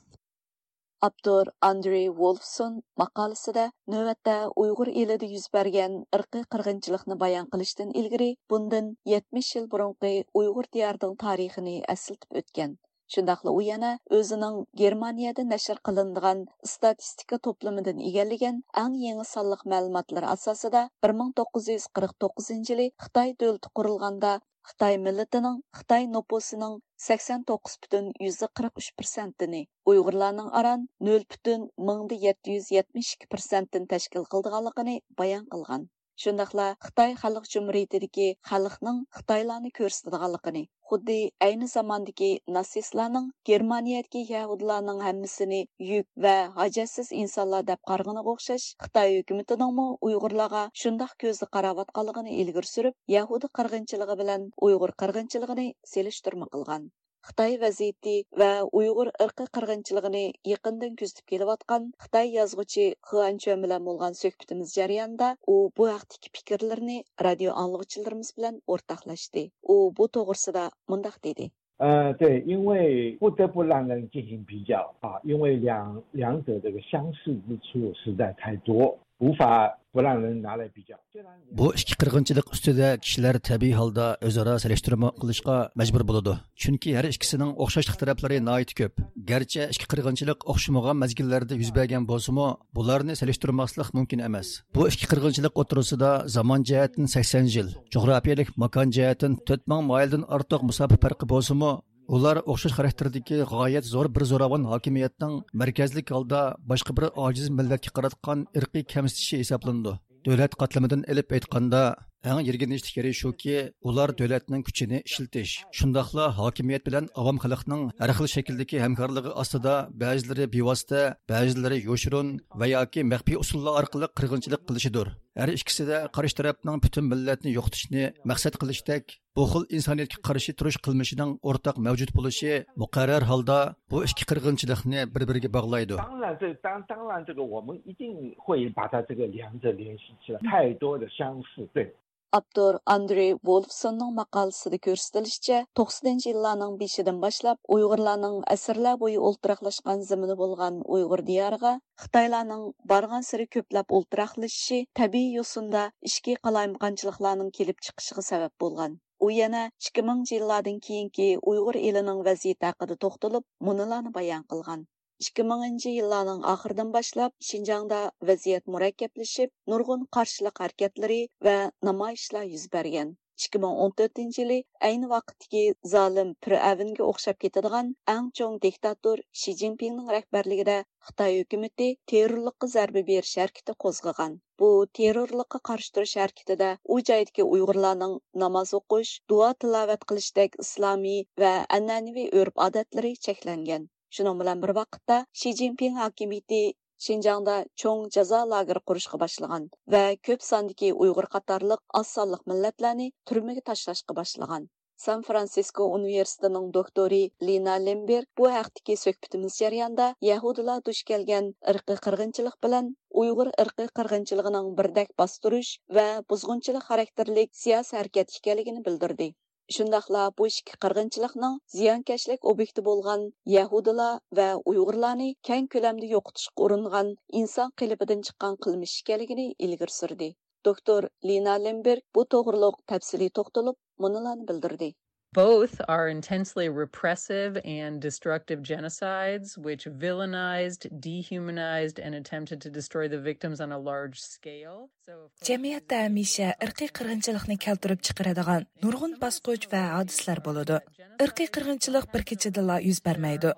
ئاپتور ئاندرېي ۋولفسون ماقالىسىدە نۆۋەتتە ئۇيغۇر ئېلىدە يۈز بەرگەن ئىرقىي قىرغىنچىلىقنى بايان قىلىشتىن ئىلگىرى بۇندىن يەتمىش يىل بۇرۇنقى ئۇيغۇر دىيارىنىڭ تارىخىنى ئەسلىتىپ ئۆتكەن. شۇنداقلا ئۇ يەنە ئۆزىنىڭ گېرمانىيەدە نەشر قىلىنىدىغان ئىستاتىستىكا توپلىمىدىن ئىگىلىگەن ئەڭ يېڭى سانلىق مەلۇماتلىرى ئاساسىدا، بىر مىڭ توققۇز يۈز قىرىق توققۇزىنچى يىلى خىتاي دۆلىتى قۇرۇلغاندا، خىتاي مىللىتىنىڭ، خىتاي نوپۇسىنىڭ سەكسەن توققۇز پۈتۈن يۈزدە قىرىق ئۈچ پىرسەنتىنى، ئۇيغۇرلارنىڭ ئاران نۆل پۈتۈن مىڭدا يەتتە يۈز يەتمىش ئىككى پىرسەنتتىن تەشكىل قىلىدىغانلىقىنى بايان قىلغان. شۇنداقلا خىتاي خەلق جۇمھۇرىيىتىدىكى خەلقنىڭ خىتايلارنى كۆرسىتىدىغانلىقىنى، خۇددى ئەينى زاماندىكى ناتسىستلارنىڭ گېرمانىيەدىكى يەھۇدىيلارنىڭ ھەممىسىنى يۈك ۋە ھاجەتسىز ئىنسانلار دەپ قارىغىنىغا ئوخشاش، خىتاي ھۆكۈمىتىنىڭمۇ ئۇيغۇرلارغا شۇنداق كۆزدە قاراۋاتقانلىقىنى ئىلگىرى سۈرۈپ، يەھۇدىي قىرغىنچىلىقى بىلەن ئۇيغۇر قىرغىنچىلىقىنى سېلىشتۇرما قىلغان. خىتاي ۋەزىيىتى ۋە ئۇيغۇر ئىرقىي قىرغىنچىلىقىنى يېقىندىن كۆزىتىپ كېلىۋاتقان خىتاي يازغۇچى خېئان چۈەن بىلەن بولغان سۆھبىتىمىز جەريانىدا ئۇ بۇ ھەقتىكى پىكىرلىرىنى رادىيو ئاڭلىغۇچىلىرىمىز بىلەن ئورتاقلاشتى. ئۇ بۇ توغرىسىدا مۇنداق دېدى. 呃，对，因为不得不让人进行比较啊，因为两两者这个相似之处实在太多，无法不让人拿来比较。虽然 بۇ ئىككى قىرغىنچىلىق ئۈستىدە كىشىلەر تەبىئىي ھالدا ئۆزئارا سېلىشتۇرما قىلىشقا مەجبۇر بولىدۇ. چۈنكى ھەر ئىككىسىنىڭ ئوخشاشلىق تەرەپلىرى ناھايىتى كۆپ. گەرچە ئىككى قىرغىنچىلىق ئوخشىمىغان مەزگىللەردە يۈز بەرگەن بولسىمۇ، بۇلارنى سېلىشتۇرماسلىق مۇمكىن ئەمەس. بۇ ئىككى قىرغىنچىلىق ئوتتۇرىسىدا زامان جەھەتتىن سەكسەن يىل، جۇغراپىيەلىك ماكان جەھەتتىن تۆت مىڭ مايىلدىن ئارتۇق مۇساپە پەرقى بولسىمۇ، ئۇلار ئوخشاش خاراكتېردىكى غايەت زور بىر زوراۋان ھاكىمىيەتنىڭ مەركەزلىك ھالدا باشقا بىر ئاجىز مىللەتكە قاراتقان ئىرقىي كەمسىتىشى ھېسابلىنىدۇ. دۆلەت قاتلىمىدىن ئېلىپ ئېيتقاندا، ئەڭ يىرگىنچلىك يېرى شۇكى، ئۇلار دۆلەتنىڭ كۈچىنى ئىشلىتىش، شۇنداقلا ھاكىمىيەت بىلەن ئاۋام خەلقنىڭ ھەر خىل شەكىلدىكى ھەمكارلىقى ئاستىدا بەزىلىرى بىۋاسىتە، بەزىلىرى يوشۇرۇن ۋە ياكى مەخپىي ئۇسۇللار ئارقىلىق قىرغىنچىلىق قىلىشىدۇر. ھەر ئىككىسىدە قارشى تەرەپنىڭ پۈتۈن مىللەتنى يوقىتىشنى مەقسەت قىلىشتەك بۇ خىل ئىنسانىيەتكە قارشى تۇرۇش قىلمىشىنىڭ ئورتاق مەۋجۇت بولۇشى مۇقەررەر ھالدا بۇ ئىككى قىرغىنچىلىقنى بىر-بىرىگە باغلايدۇ. 当然，这当当然，这个我们一定会把它这个两者联系起来，太多的相似，对。 ئاپتور ئاندرېي ۋولفسوننىڭ ماقالىسىدە كۆرسىتىلىشىچە، توقسىنىنچى يىللارنىڭ بېشىدىن باشلاپ ئۇيغۇرلارنىڭ ئەسىرلەر بويى ئولتۇراقلاشقان زېمىنى بولغان ئۇيغۇر دىيارىغا خىتايلارنىڭ بارغانسېرى كۆپلەپ ئولتۇراقلىشىشى تەبىئىي يوسۇندا ئىچكى قالايمىقانچىلىقلارنىڭ كېلىپ چىقىشىغا سەۋەب بولغان. ئۇ يەنە ئىككى مىڭىنچى يىللاردىن كېيىنكى ئۇيغۇر ئېلىنىڭ ۋەزىيىتى ھەققىدە توختىلىپ، مۇنۇلارنى بايان قىلغان. ئىككى مىڭىنچى يىللارنىڭ ئاخىرىدىن باشلاپ شىنجاڭدا ۋەزىيەت مۇرەككەپلىشىپ، نۇرغۇن قارشىلىق ھەرىكەتلىرى ۋە نامايىشلار يۈز بەرگەن. ئىككى مىڭ ئون تۆتىنچى يىلى ئەينى ۋاقىتتىكى زالىم پىرئەۋنگە ئوخشاپ كېتىدىغان ئەڭ چوڭ دىكتاتور شى جىنپىڭنىڭ رەھبەرلىكىدە خىتاي ھۆكۈمىتى تېررورلۇققا زەربە بېرىش ھەرىكىتى قوزغىغان. بۇ تېررورلۇققا قارشى تۇرۇش ھەرىكىتىدە ئۇ جايدىكى ئۇيغۇرلارنىڭ ناماز ئوقۇش، دۇئا تىلاۋەت قىلىشتەك ئىسلامىي ۋە ئەنئەنىۋى ئۆرپ-ئادەتلىرى چەكلەنگەن. شۇنىڭ بىلەن بىر ۋاقىتتا، شى جىنپىڭ ھاكىمىيىتى شىنجاڭدا چوڭ جازا لاگېرى قۇرۇشقا باشلىغان ۋە كۆپ ساندىكى ئۇيغۇر قاتارلىق ئاز سانلىق مىللەتلەرنى تۈرمىگە تاشلاشقا باشلىغان. سان فرانسىسكو ئۇنىۋېرسىتېتىنىڭ دوكتورى لىنا لېمبېرگ بۇ ھەقتىكى سۆھبىتىمىز جەريانىدا يەھۇدىيلار دۇچ كەلگەن ئىرقىي قىرغىنچىلىق بىلەن ئۇيغۇر ئىرقىي قىرغىنچىلىقىنىڭ بىردەك باستۇرۇش ۋە بۇزغۇنچىلىق خاراكتېرلىك سىياسىي ھەرىكەت ئىكەنلىكىنى بىلدۈردى. شۇنداقلا بۇ ئىككى قىرغىنچىلىقنىڭ زىيانكەشلىك ئوبيېكتى بولغان يەھۇدىيلار ۋە ئۇيغۇرلارنى كەڭ كۆلەمدە يوقىتىشقا ئۇرۇنغان ئىنسان قېلىپىدىن چىققان قىلمىش ئىكەنلىكىنى ئىلگىرى سۈردى. دوكتور لىنا لېمبېرگ بۇ توغرۇلۇق تەپسىلىي توختىلىپ، مۇنۇلارنى بىلدۈردى. Both are intensely repressive and destructive genocides, which villainized, dehumanized, and attempted to destroy the victims on a large scale. So, of course, جەمئىيەتتە ھەمىشە ئىرقىي قىرغىنچىلىقنى كەلتۈرۈپ چىقىرىدىغان نۇرغۇن باسقۇچ ۋە ھادىسىلەر بولىدۇ. ئىرقىي قىرغىنچىلىق بىر كېچىدىلا يۈز بەرمەيدۇ.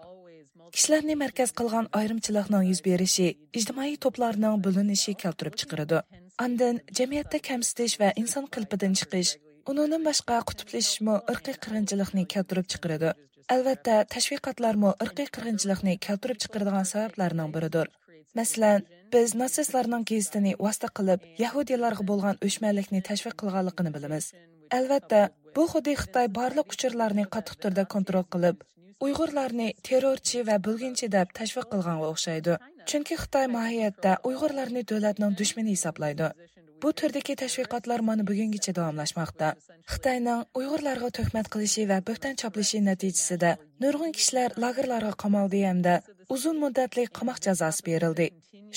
كىشىلەرنى مەركەز قىلغان ئايرىمچىلىقنىڭ يۈز بېرىشى ئىجتىمائىي توپلارنىڭ بۆلۈنۈشى كەلتۈرۈپ چىقىرىدۇ. ئاندىن جەمئىيەتتە كەمسىتىش ۋە ئىنسان قېلىپىدىن چىقىش، ئۇنىڭدىن باشقا قۇتۇپلىشىشمۇ ئىرقىي قىرغىنچىلىقنى كەلتۈرۈپ چىقىرىدۇ. ئەلۋەتتە، تەشۋىقاتلارمۇ ئىرقىي قىرغىنچىلىقنى كەلتۈرۈپ چىقىرىدىغان سەۋەبلەرنىڭ بىرىدۇر. مەسىلەن، بىز ناتسىستلارنىڭ گېزىتىنى ۋاسىتە قىلىپ، يەھۇدىيلارغا بولغان ئۆچمەنلىكنى تەشۋىق قىلغانلىقىنى بىلىمىز. ئەلۋەتتە، بۇ خۇددى خىتاي بارلىق ئۇچۇرلارنى قاتتىق تۈردە كونترول قىلىپ، ئۇيغۇرلارنى تېررورچى ۋە بۆلگۈنچى دەپ تەشۋىق قىلغانغا ئوخشايدۇ. چۈنكى خىتاي ماھىيەتتە ئۇيغۇرلارنى دۆلەتنىڭ دۈشمىنى ھېسابلايدۇ. بۇ تۈردىكى تەشۋىقاتلار مانا بۈگۈنگىچە داۋاملاشماقتا. خىتاينىڭ ئۇيغۇرلارغا تۆھمەت قىلىشى ۋە بۆھتان چاپلىشى نەتىجىسىدە نۇرغۇن كىشىلەر لاگېرلارغا قامالدى ھەمدە ئۇزۇن مۇددەتلىك قاماق جازاسى بېرىلدى.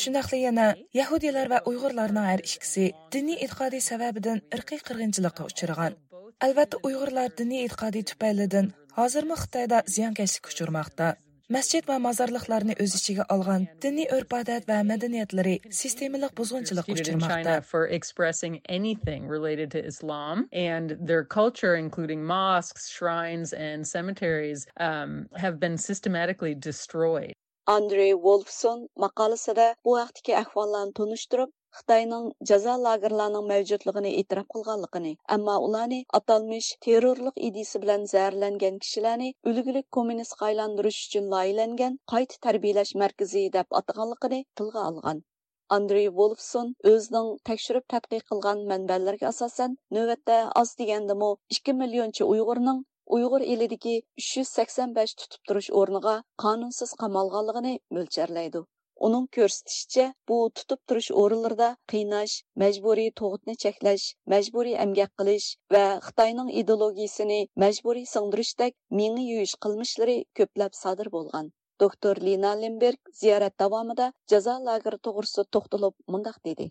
شۇنداقلا يەنە يەھۇدىيلار ۋە ئۇيغۇرلارنىڭ ھەر ئىككىسى دىنىي ئېتىقادى سەۋەبىدىن ئىرقىي قىرغىنچىلىققا ئۇچرىغان. ئەلۋەتتە، ئۇيغۇرلار دىنىي ئېتىقادى تۈپەيلىدىن ھازىرمۇ خىتايدا زىيانكەشلىككە ئۇچرىماقتا. مەسچىت ۋە مازارلىقلارنى ئۆز ئىچىگە ئالغان دىنىي ئۆرپ-ئادەت ۋە مەدەنىيەتلىرى سىستېمىلىق بۇزغۇنچىلىققا ئۇچرىماقتا. Prosecuted in China for expressing anything related to Islam, and their culture, including mosques, shrines, and cemeteries, um, have been systematically destroyed. ئاندرې ۋولفسون ماقالىسىدە بۇ ھەقتىكى ئەھۋاللارنى تونۇشتۇرۇپ، خىتاينىڭ جازا لاگېرلارنىڭ مەۋجۇتلۇقىنى ئېتىراپ قىلغانلىقىنى، ئەمما ئۇلارنى ئاتالمىش تېررورلۇق ئىدىيىسى بىلەن زەھەرلەنگەن كىشىلەرنى ئۈلگىلىك كوممۇنىستقا ئايلاندۇرۇش ئۈچۈن لايىھەلەنگەن قايتا تەربىيەلەش مەركىزى دەپ ئاتىغانلىقىنى تىلغا ئالغان. ئاندرېي ۋولفسون ئۆزىنىڭ تەكشۈرۈپ تەتقىق قىلغان مەنبەلىرىگە ئاساسەن، نۆۋەتتە ئاز دېگەندىمۇ ئىككى مىليونچە ئۇيغۇرنىڭ ئۇيغۇر ئېلىدىكى ئۈچ يۈز سەكسەن بەش تۇتۇپ تۇرۇش ئورنىغا قانۇنسىز قامالغانلىقىنى مۆلچەرلەيدۇ. ئۇنىڭ كۆرسىتىشىچە، بۇ تۇتۇپ تۇرۇش ئورۇنلىرىدا قىيناش، مەجبۇرىي تۇغۇتنى چەكلەش، مەجبۇرىي ئەمگەك قىلىش ۋە خىتاينىڭ ئىدېئولوگىيىسىنى مەجبۇرىي سىڭدۈرۈشتەك مېڭە يۇيۇش قىلمىشلىرى كۆپلەپ سادىر بولغان. دوكتور لىنا لېمبېرگ زىيارەت داۋامىدا جازا لاگېرى توغرىسىدا توختىلىپ مۇنداق دېدى.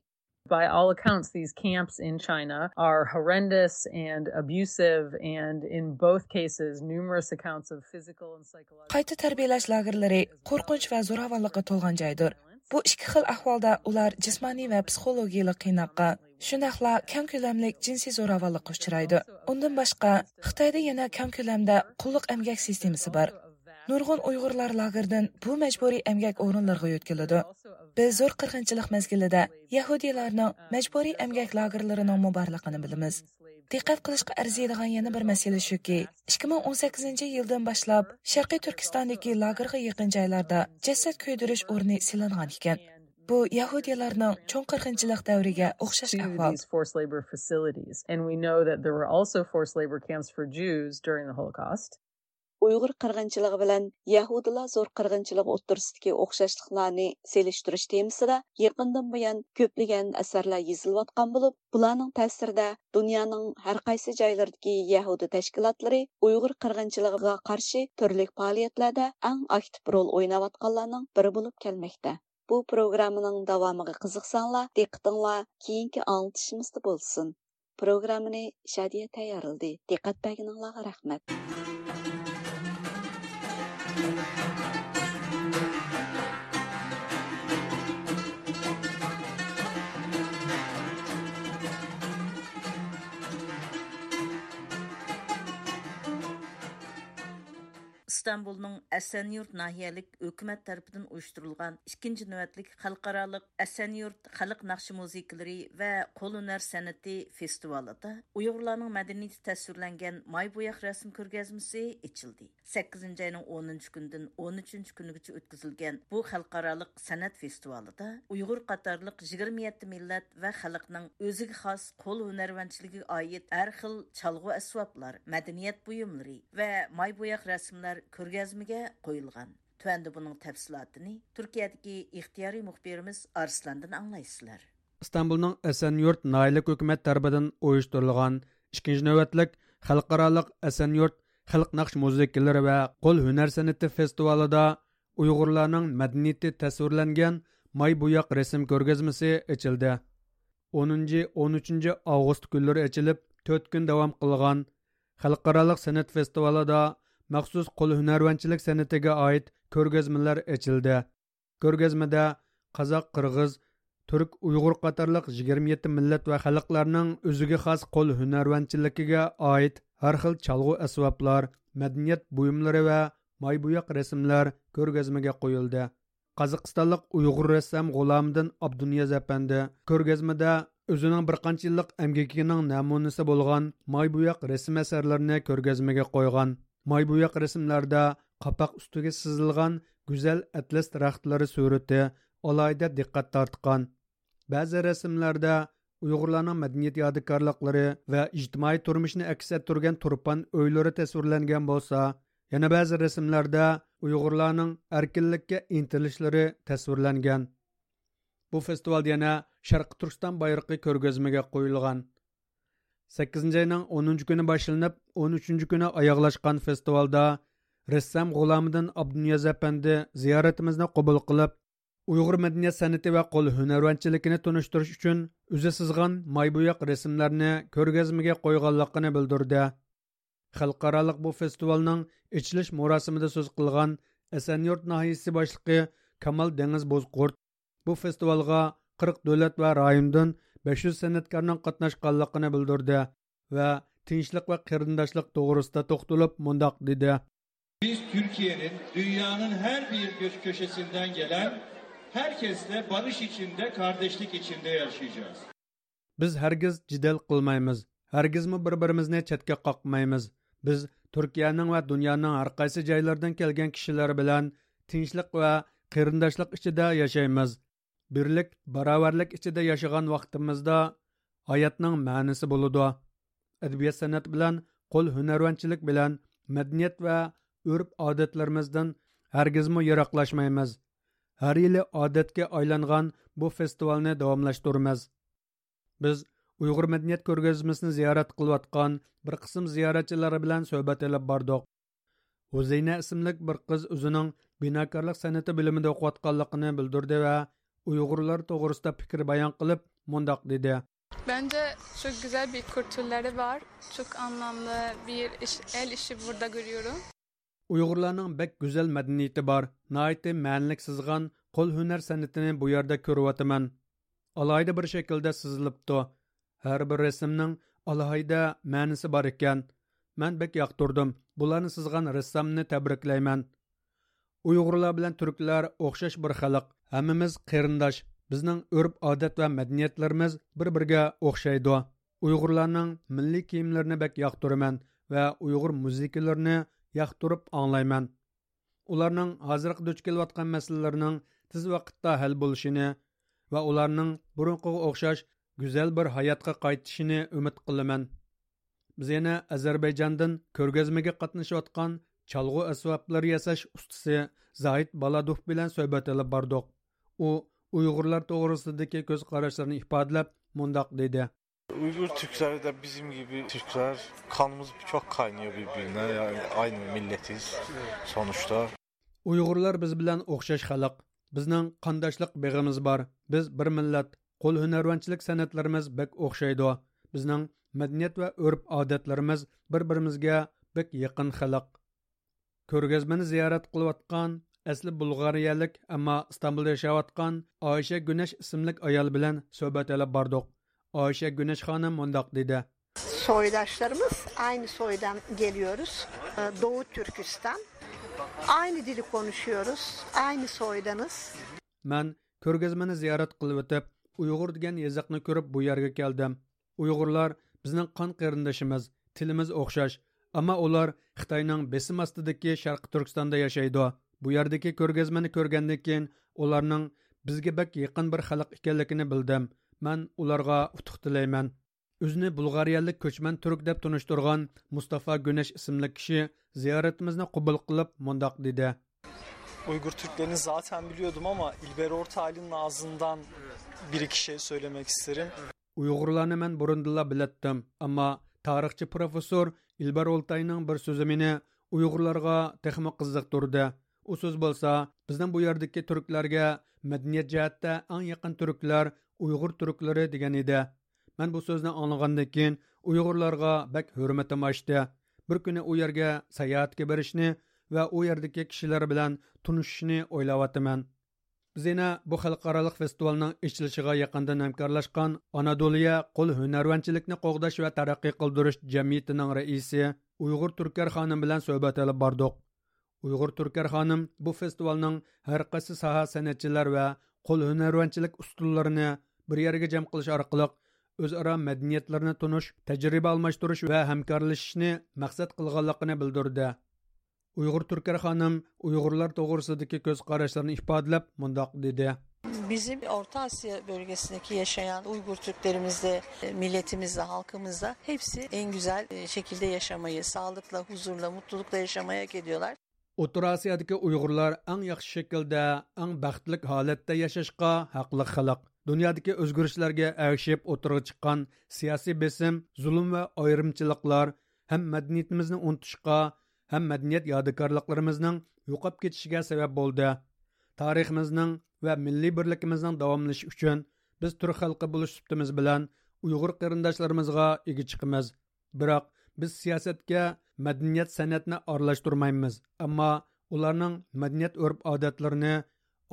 By all accounts, these camps in China are horrendous and abusive, and in both cases, numerous accounts of physical and psychological قايتا تەربىيەلەش لاگېرلىرى قورقۇنچ ۋە زوراۋانلىققا تولغان جايدۇر. بۇ ئىككى خىل ئەھۋالدا ئۇلار جىسمانىي ۋە پسىخولوگىيىلىق قىيناققا، شۇنداقلا كەڭ كۆلەملىك جىنسىي زوراۋانلىققا ئۇچرايدۇ. ئۇندىن باشقا، خىتايدا يەنە كەڭ كۆلەمدە قۇللۇق ئەمگەك سىستېمىسى بار. نۇرغۇن ئۇيغۇرلار لاگېردىن بۇ مەجبۇرىي ئەمگەك ئورۇنلىرىغا يۆتكىلىدۇ. بىز زور قىرغىنچىلىق مەزگىلىدە يەھۇدىيلارنىڭ مەجبۇرىي ئەمگەك لاگېرلىرىنىڭمۇ بارلىقىنى بىلىمىز. دىققەت قىلىشقا ئەرزىيدىغان يەنە بىر مەسىلە شۇكى، ئىككى مىڭ ئون سەككىزىنچى يىلدىن باشلاپ شەرقىي تۈركىستاندىكى لاگېرغا يېقىن جايلاردا جەسەت كۆيدۈرۈش ئورنى سېلىنغان ئىكەن. بۇ يەھۇدىيلارنىڭ چوڭ قىرغىنچىلىق دەۋرىگە ئوخشاش to ئەھۋال. These forced labor facilities. And we know that there were also forced labor camps for Jews during the Holocaust. ئۇيغۇر قىرغىنچىلىقى بىلەن يەھۇدىيلار زور قىرغىنچىلىقى ئوتتۇرىسىدىكى ئوخشاشلىقلارنى سېلىشتۇرۇش تېمىسىدا يېقىندىن بۇيان كۆپلىگەن ئەسەرلەر يېزىلىۋاتقان بولۇپ، بۇلارنىڭ تەسىرىدە دۇنيانىڭ ھەر قايسى جايلىرىدىكى يەھۇدىي تەشكىلاتلىرى ئۇيغۇر قىرغىنچىلىقىغا قارشى تۈرلۈك پائالىيەتلەردە ئەڭ ئاكتىپ رول ئويناۋاتقانلارنىڭ بىرى بولۇپ كەلمەكتە. بۇ پروگراممىنىڭ داۋامىغا قىزىقساڭلار، دىققىتىڭلار كېيىنكى ئاڭلىتىشىمىزدا بولسۇن. پروگراممىنى شادىيە تەييارلىدى. دىققەت بەرگىنىڭلارغا رەھمەت. ئىستانبۇلنىڭ ئەسەنيۇرت ناھىيەلىك ھۆكۈمەت تەرىپىدىن ئۇيۇشتۇرۇلغان ئىككىنچى نۆۋەتلىك خەلقئارالىق ئەسەنيۇرت خەلق ناخشا مۇزىكىلىرى ۋە قول ھۈنەر سەنئىتى فېستىۋالىدا ئۇيغۇرلارنىڭ مەدەنىيىتى تەسۋىرلەنگەن ماي بوياق رەسىم كۆرگەزمىسى ئېچىلدى. سەككىزىنچى ئاينىڭ ئونىنچى كۈنىدىن ئون ئۈچىنچى كۈنىگىچە ئۆتكۈزۈلگەن بۇ خەلقئارالىق سەنئەت فېستىۋالىدا ئۇيغۇر قاتارلىق يىگىرمە يەتتە مىللەت ۋە خەلقنىڭ ئۆزىگە خاس قول ھۈنەرۋەنچىلىكىگە ئائىت ھەر خىل چالغۇ ئەسۋابلار، مەدەنىيەت بۇيۇملىرى ۋە ماي بوياق رەسىملەر كۆرگەزمىگە قويۇلغان. تۆۋەندە بۇنىڭ تەپسىلاتىنى تۈركىيەدىكى ئىختىيارىي مۇخبىرىمىز ئارسلاندىن ئاڭلايسىلەر. ئىستانبۇلنىڭ ئەسەنيۇرت ناھىيەلىك ھۆكۈمەت تەرىپىدىن ئۇيۇشتۇرۇلغان ئىككىنچى نۆۋەتلىك خەلقئارالىق ئەسەنيۇرت خەلق ناخشا مۇزىكىلىرى ۋە قول ھۈنەر سەنئىتى فېستىۋالىدا ئۇيغۇرلارنىڭ مەدەنىيىتى تەسۋىرلەنگەن ماي بوياق رەسىم كۆرگەزمىسى ئېچىلدى. ئونىنچى، ئون ئۈچىنچى ئاۋغۇست كۈنلىرى ئېچىلىپ، تۆت كۈن داۋام قىلغان خەلقئارالىق سەنئەت فېستىۋالىدا مەخسۇس قول ھۈنەرۋەنچىلىك سەنئىتىگە ئائىت كۆرگەزمىلەر ئېچىلدى. كۆرگەزمىدە قازاق، قىرغىز، تۈرك، ئۇيغۇر قاتارلىق يىگىرمە يەتتە مىللەت ۋە خەلقلەرنىڭ ئۆزىگە خاس قول ھۈنەرۋەنچىلىكىگە ئائىت ھەر خىل چالغۇ ئەسۋابلار، مەدەنىيەت بۇيۇملىرى ۋە ماي بوياق رەسىملەر كۆرگەزمىگە قويۇلدى. قازاقىستانلىق ئۇيغۇر رەسسام غۇلامىدىن ئابدۇنىياز ئەپەندى كۆرگەزمىدە ئۆزىنىڭ بىر قانچە يىللىق ئەمگىكىنىڭ نەمۇنىسى بولغان ماي بوياق رەسىم ئەسەرلىرىنى كۆرگەزمىگە قويغان. ماي بوياق رەسىملەردە قاپاق ئۈستىگە سىزىلغان گۈزەل ئەتلەس دەرەخلىرى سۈرىتى ئالاھىدە دىققەت تارتقان. بەزى رەسىملەردە ئۇيغۇرلارنىڭ مەدەنىيەت يادىكارلىقلىرى ۋە ئىجتىمائىي تۇرمۇشىنى ئەكس ئەتتۈرگەن تۇرپان ئۆيلىرى تەسۋىرلەنگەن بولسا، يەنە بەزى رەسىملەردە ئۇيغۇرلارنىڭ ئەركىنلىككە ئىنتىلىشلىرى تەسۋىرلەنگەن. بۇ فېستىۋالدا يەنە شەرقىي تۈركىستان بايرىقى كۆرگەزمىگە قويۇلغان. سەككىزىنچى ئاينىڭ ئونىنچى كۈنى باشلىنىپ، ئون ئۈچىنچى كۈنى ئاياغلاشقان فېستىۋالدا رەسسام غۇلامىدىن ئابدۇنىياز ئەپەندى زىيارىتىمىزنى قوبۇل قىلىپ، ئۇيغۇر مەدەنىيەت سەنئىتى ۋە قول ھۈنەرۋەنچىلىكىنى تونۇشتۇرۇش ئۈچۈن ئۆزى سىزغان ماي بوياق رەسىملەرنى كۆرگەزمىگە قويغانلىقىنى بىلدۈردى. خەلقئارالىق بۇ فېستىۋالنىڭ ئېچىلىش مۇراسىمىدا سۆز قىلغان ئەسەنيۇرت ناھىيىسى باشلىقى كامال دېڭىز بوزقۇرت بۇ فېستىۋالغا قىرىق دۆلەت ۋە رايوندىن بەش يۈز سەنئەتكارنىڭ قاتناشقانلىقىنى بىلدۈردى ۋە تىنچلىق ۋە قېرىنداشلىق توغرىسىدا توختىلىپ مۇنداق دېدى. Biz Türkiye'nin dünyanın her bir kö- köşesinden gelen herkesle barış içinde, kardeşlik içinde yaşayacağız. بىز ھەرگىز جېدەل قىلمايمىز، ھەرگىزمۇ بىر-بىرىمىزنى چەتكە قاقمايمىز. بىز تۈركىيەنىڭ ۋە دۇنيانىڭ ھەرقايسى جايلىرىدىن كەلگەن كىشىلەر بىلەن تىنچلىق ۋە قېرىنداشلىق ئىچىدە ياشايمىز. بىرلىك، باراۋەرلىك ئىچىدە ياشىغان ۋاقتىمىزدا ھاياتنىڭ مەنىسى بولىدۇ. ئەدەبىيات-سەنئەت بىلەن قول ھۈنەرۋەنچىلىك بىلەن مەدەنىيەت ۋە ئۆرپ-ئادەتلىرىمىزدىن ھەرگىزمۇ يىراقلاشمايمىز. ھەر يىلى ئادەتكە ئايلانغان بۇ فېستىۋالنى داۋاملاشتۇرىمىز. بىز ئۇيغۇر مەدەنىيەت كۆرگەزمىسىنى زىيارەت قىلىۋاتقان بىر قىسىم زىيارەتچىلەر بىلەن سۆھبەت ئېلىپ باردۇق. ھۇزەينە ئىسىملىك بىر قىز ئۆزىنىڭ بىناكارلىق سەنئىتى بۆلۈمىدە ئوقۇۋاتقانلىقىنى بىلدۈردى ۋە ئۇيغۇرلار توغرىسىدا پىكىر بايان قىلىپ مۇنداق دېدى. Bence çok güzel bir kültürleri var. Çok anlamlı bir iş, el işi burada görüyorum. ئۇيغۇرلارنىڭ بەك گۈزەل مەدەنىيىتى بار، ناھايىتى مەنىلىك سىزغان قول ھۈنەر سەنئىتىنى بۇ يەردە كۆرۈۋاتىمەن. ئالاھىدە بىر شەكىلدە سىزىلىپتۇ. ھەر بىر رەسىمنىڭ ئالاھىدە مەنىسى بار ئىكەن. مەن بەك ياقتۇردۇم. بۇلارنى سىزغان رەسسامنى تەبرىكلەيمەن. ئۇيغۇرلار بىلەن تۈركلەر ئوخشاش بىر خەلق. ھەممىمىز قېرىنداش. بىزنىڭ ئۆرپ-ئادەت ۋە مەدەنىيەتلىرىمىز بىر-بىرىگە ئوخشايدۇ. ئۇيغۇرلارنىڭ مىللىي كىيىملىرىنى بەك ياقتۇرىمەن ۋە ئۇيغۇر مۇزىكىلىرىنى ياقتۇرۇپ ئاڭلايمەن. ئۇلارنىڭ ھازىرقى دۇچ كېلىۋاتقان مەسىلىلىرىنىڭ تېز ۋاقىتتا ھەل بولۇشىنى ۋە ئۇلارنىڭ بۇرۇنقىغا ئوخشاش گۈزەل بىر ھاياتقا قايتىشىنى ئۈمىد قىلىمەن. بىز يەنە ئەزەربەيجاندىن كۆرگەزمىگە قاتنىشىۋاتقان چالغۇ ئەسۋابلىرى ياساش ئۇستىسى زاھىت بالادوف بىلەن سۆھبەت ئېلىپ باردۇق. ئۇ ئۇيغۇرلار توغرىسىدىكى كۆز قاراشلىرىنى ئىپادىلەپ مۇنداق دېدى. Uygur Türkleri de bizim gibi Türkler, kanımız çok kaynıyor birbirine. Yani aynı milletiz sonuçta. ئۇيغۇرلار بىز بىلەن ئوخشاش خەلق. بىزنىڭ قانداشلىق بېغىمىز بار. بىز بىر مىللەت. قول ھۈنەرۋەنچىلىك سەنئەتلىرىمىز بەك ئوخشايدۇ. بىزنىڭ مەدەنىيەت ۋە ئۆرپ-ئادەتلىرىمىز بىر-بىرىمىزگە بەك يېقىن خەلق. كۆرگەزمىنى زىيارەت قىلىۋاتقان، ئەسلى بۇلغارىيەلىك، ئەمما ئىستانبۇلدا ياشاۋاتقان ئايشە گۈنەش ئىسىملىك ئايال بىلەن سۆھبەت ئېلىپ باردۇق. ئايشە گۈنەش خانىم مۇنداق دېدى. Soydaşlarımız aynı soydan geliyoruz. Ee, Doğu Türkistan. Aynı dili konuşuyoruz. Aynı soydanız. مەن كۆرگەزمىنى زىيارەت قىلىۋېتىپ، ئۇيغۇر دېگەن يېزىقنى كۆرۈپ بۇ يەرگە كەلدىم. ئۇيغۇرلار بىزنىڭ قان قېرىندىشىمىز، تىلىمىز ئوخشاش. ئەمما ئۇلار خىتاينىڭ بېسىم ئاستىدىكى شەرقىي تۈركىستاندا ياشايدۇ. بۇ يەردىكى كۆرگەزمىنى كۆرگەندىن كېيىن ئۇلارنىڭ بىزگە بەك يېقىن بىر خەلق ئىكەنلىكىنى بىلدىم. مەن ئۇلارغا ئۇتۇق تىلەيمەن. ئۆزىنى بۇلغارىيەلىك كۆچمەن تۈرك دەپ تونۇشتۇرغان مۇستافا گۈنەش ئىسىملىك كىشى زىيارىتىمىزنى قوبۇل قىلىپ مۇنداق دېدى. Uygur Türklerini zaten biliyordum ama İlber Ortaylı'nın ağzından bir iki şey söylemek isterim. ئۇيغۇرلارنى مەن بۇرۇندىنلا بىلەتتىم، ئەمما تارىخچى پروفېسسور ئىلبار ئولتاينىڭ بىر سۆزى مېنى ئۇيغۇرلارغا تېخىمۇ قىزىقتۇردى. ئۇ سۆز بولسا، بىزنىڭ بۇ يەردىكى تۈركلەرگە مەدەنىيەت جەھەتتە ئەڭ يېقىن تۈركلەر ئۇيغۇر تۈركلىرى دېگەن ئىدى. مەن بۇ سۆزنى ئاڭلىغاندىن كېيىن ئۇيغۇرلارغا بەك ھۆرمىتىم ئاشتى. بىر كۈنى ئۇ يەرگە ساياھەتكە بېرىشنى ۋە ئۇ يەردىكى كىشىلەر بىلەن تونۇشۇشنى ئويلاۋاتىمەن. بىز يەنە بۇ خەلقئارالىق فېستىۋالنىڭ ئېچىلىشىغا يېقىندىن ھەمكارلاشقان ئانادولىيە قول ھۈنەرۋەنچىلىكنى قوغداش ۋە تەرەققىي قىلدۇرۇش جەمئىيىتىنىڭ رەئىسى ئۇيغۇر تۈركەر خانىم بىلەن سۆھبەت ئېلىپ باردۇق. ئۇيغۇر تۈركەر خانىم بۇ فېستىۋالنىڭ ھەر قايسى ساھە سەنئەتچىلەر ۋە قول ھۈنەرۋەنچىلىك ئۇستىلىرىنى بىر يەرگە جەم قىلىش ئارقىلىق ئۆزئارا مەدەنىيەتلىرىنى تونۇش، تەجرىبە ئالماشتۇرۇش ۋە ھەمكارلىشىشنى مەقسەت قىلغانلىقىنى بىلدۈردى. ئۇيغۇر تۈركەر خانىم ئۇيغۇرلار توغرىسىدىكى كۆز قاراشلىرىنى ئىپادىلەپ مۇنداق دېدى. Bizim Orta Asya bölgesindeki yaşayan Uygur Türklerimiz de, e, milletimiz de, halkımız da hepsi en güzel, e, şekilde yaşamayı, sağlıkla, huzurla, mutlulukla yaşamayı hak ediyorlar. ئوتتۇرا ئاسىيادىكى ئۇيغۇرلار ئەڭ ياخشى شەكىلدە، ئەڭ بەختلىك ھالەتتە ياشاشقا ھەقلىق خەلق. دۇنيادىكى ئۆزگىرىشلەرگە ئەگىشىپ ئوتتۇرىغا چىققان سىياسىي بېسىم، زۇلۇم ۋە ئايرىمچىلىقلار ھەم مەدەنىيىتىمىزنى ئۇنتۇشقا، ھەم مەدەنىيەت يادىكارلىقلىرىمىزنىڭ يوقاپ كېتىشىگە سەۋەب بولدى. تارىخىمىزنىڭ ۋە مىللىي بىرلىكىمىزنىڭ داۋاملىشىشى ئۈچۈن بىز تۈرك خەلقى بولۇش سۈپىتىمىز بىلەن ئۇيغۇر قېرىنداشلىرىمىزغا ئىگە چىقىمىز. بىراق، بىز سىياسەتكە مەدەنىيەت سەنئەتنى ئارىلاشتۇرمايمىز، ئەمما ئۇلارنىڭ مەدەنىيەت ئۆرپ-ئادەتلىرىنى،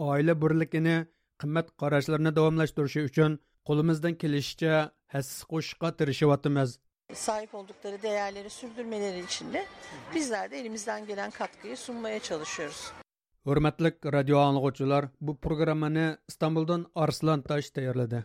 ئائىلە بىرلىكىنى، قىممەت قاراشلىرىنى داۋاملاشتۇرۇشى ئۈچۈن قولىمىزدىن كېلىشىچە ھەسسە قوشۇشقا تىرىشىۋاتىمىز. Sahip oldukları değerleri sürdürmeleri için de bizler de elimizden gelen katkıyı sunmaya çalışıyoruz. ھۆرمەتلىك رادىيو ئاڭلىغۇچىلار، بۇ پروگراممىنى ئىستانبۇلدىن ئارسلان تاش تەييارلىدى.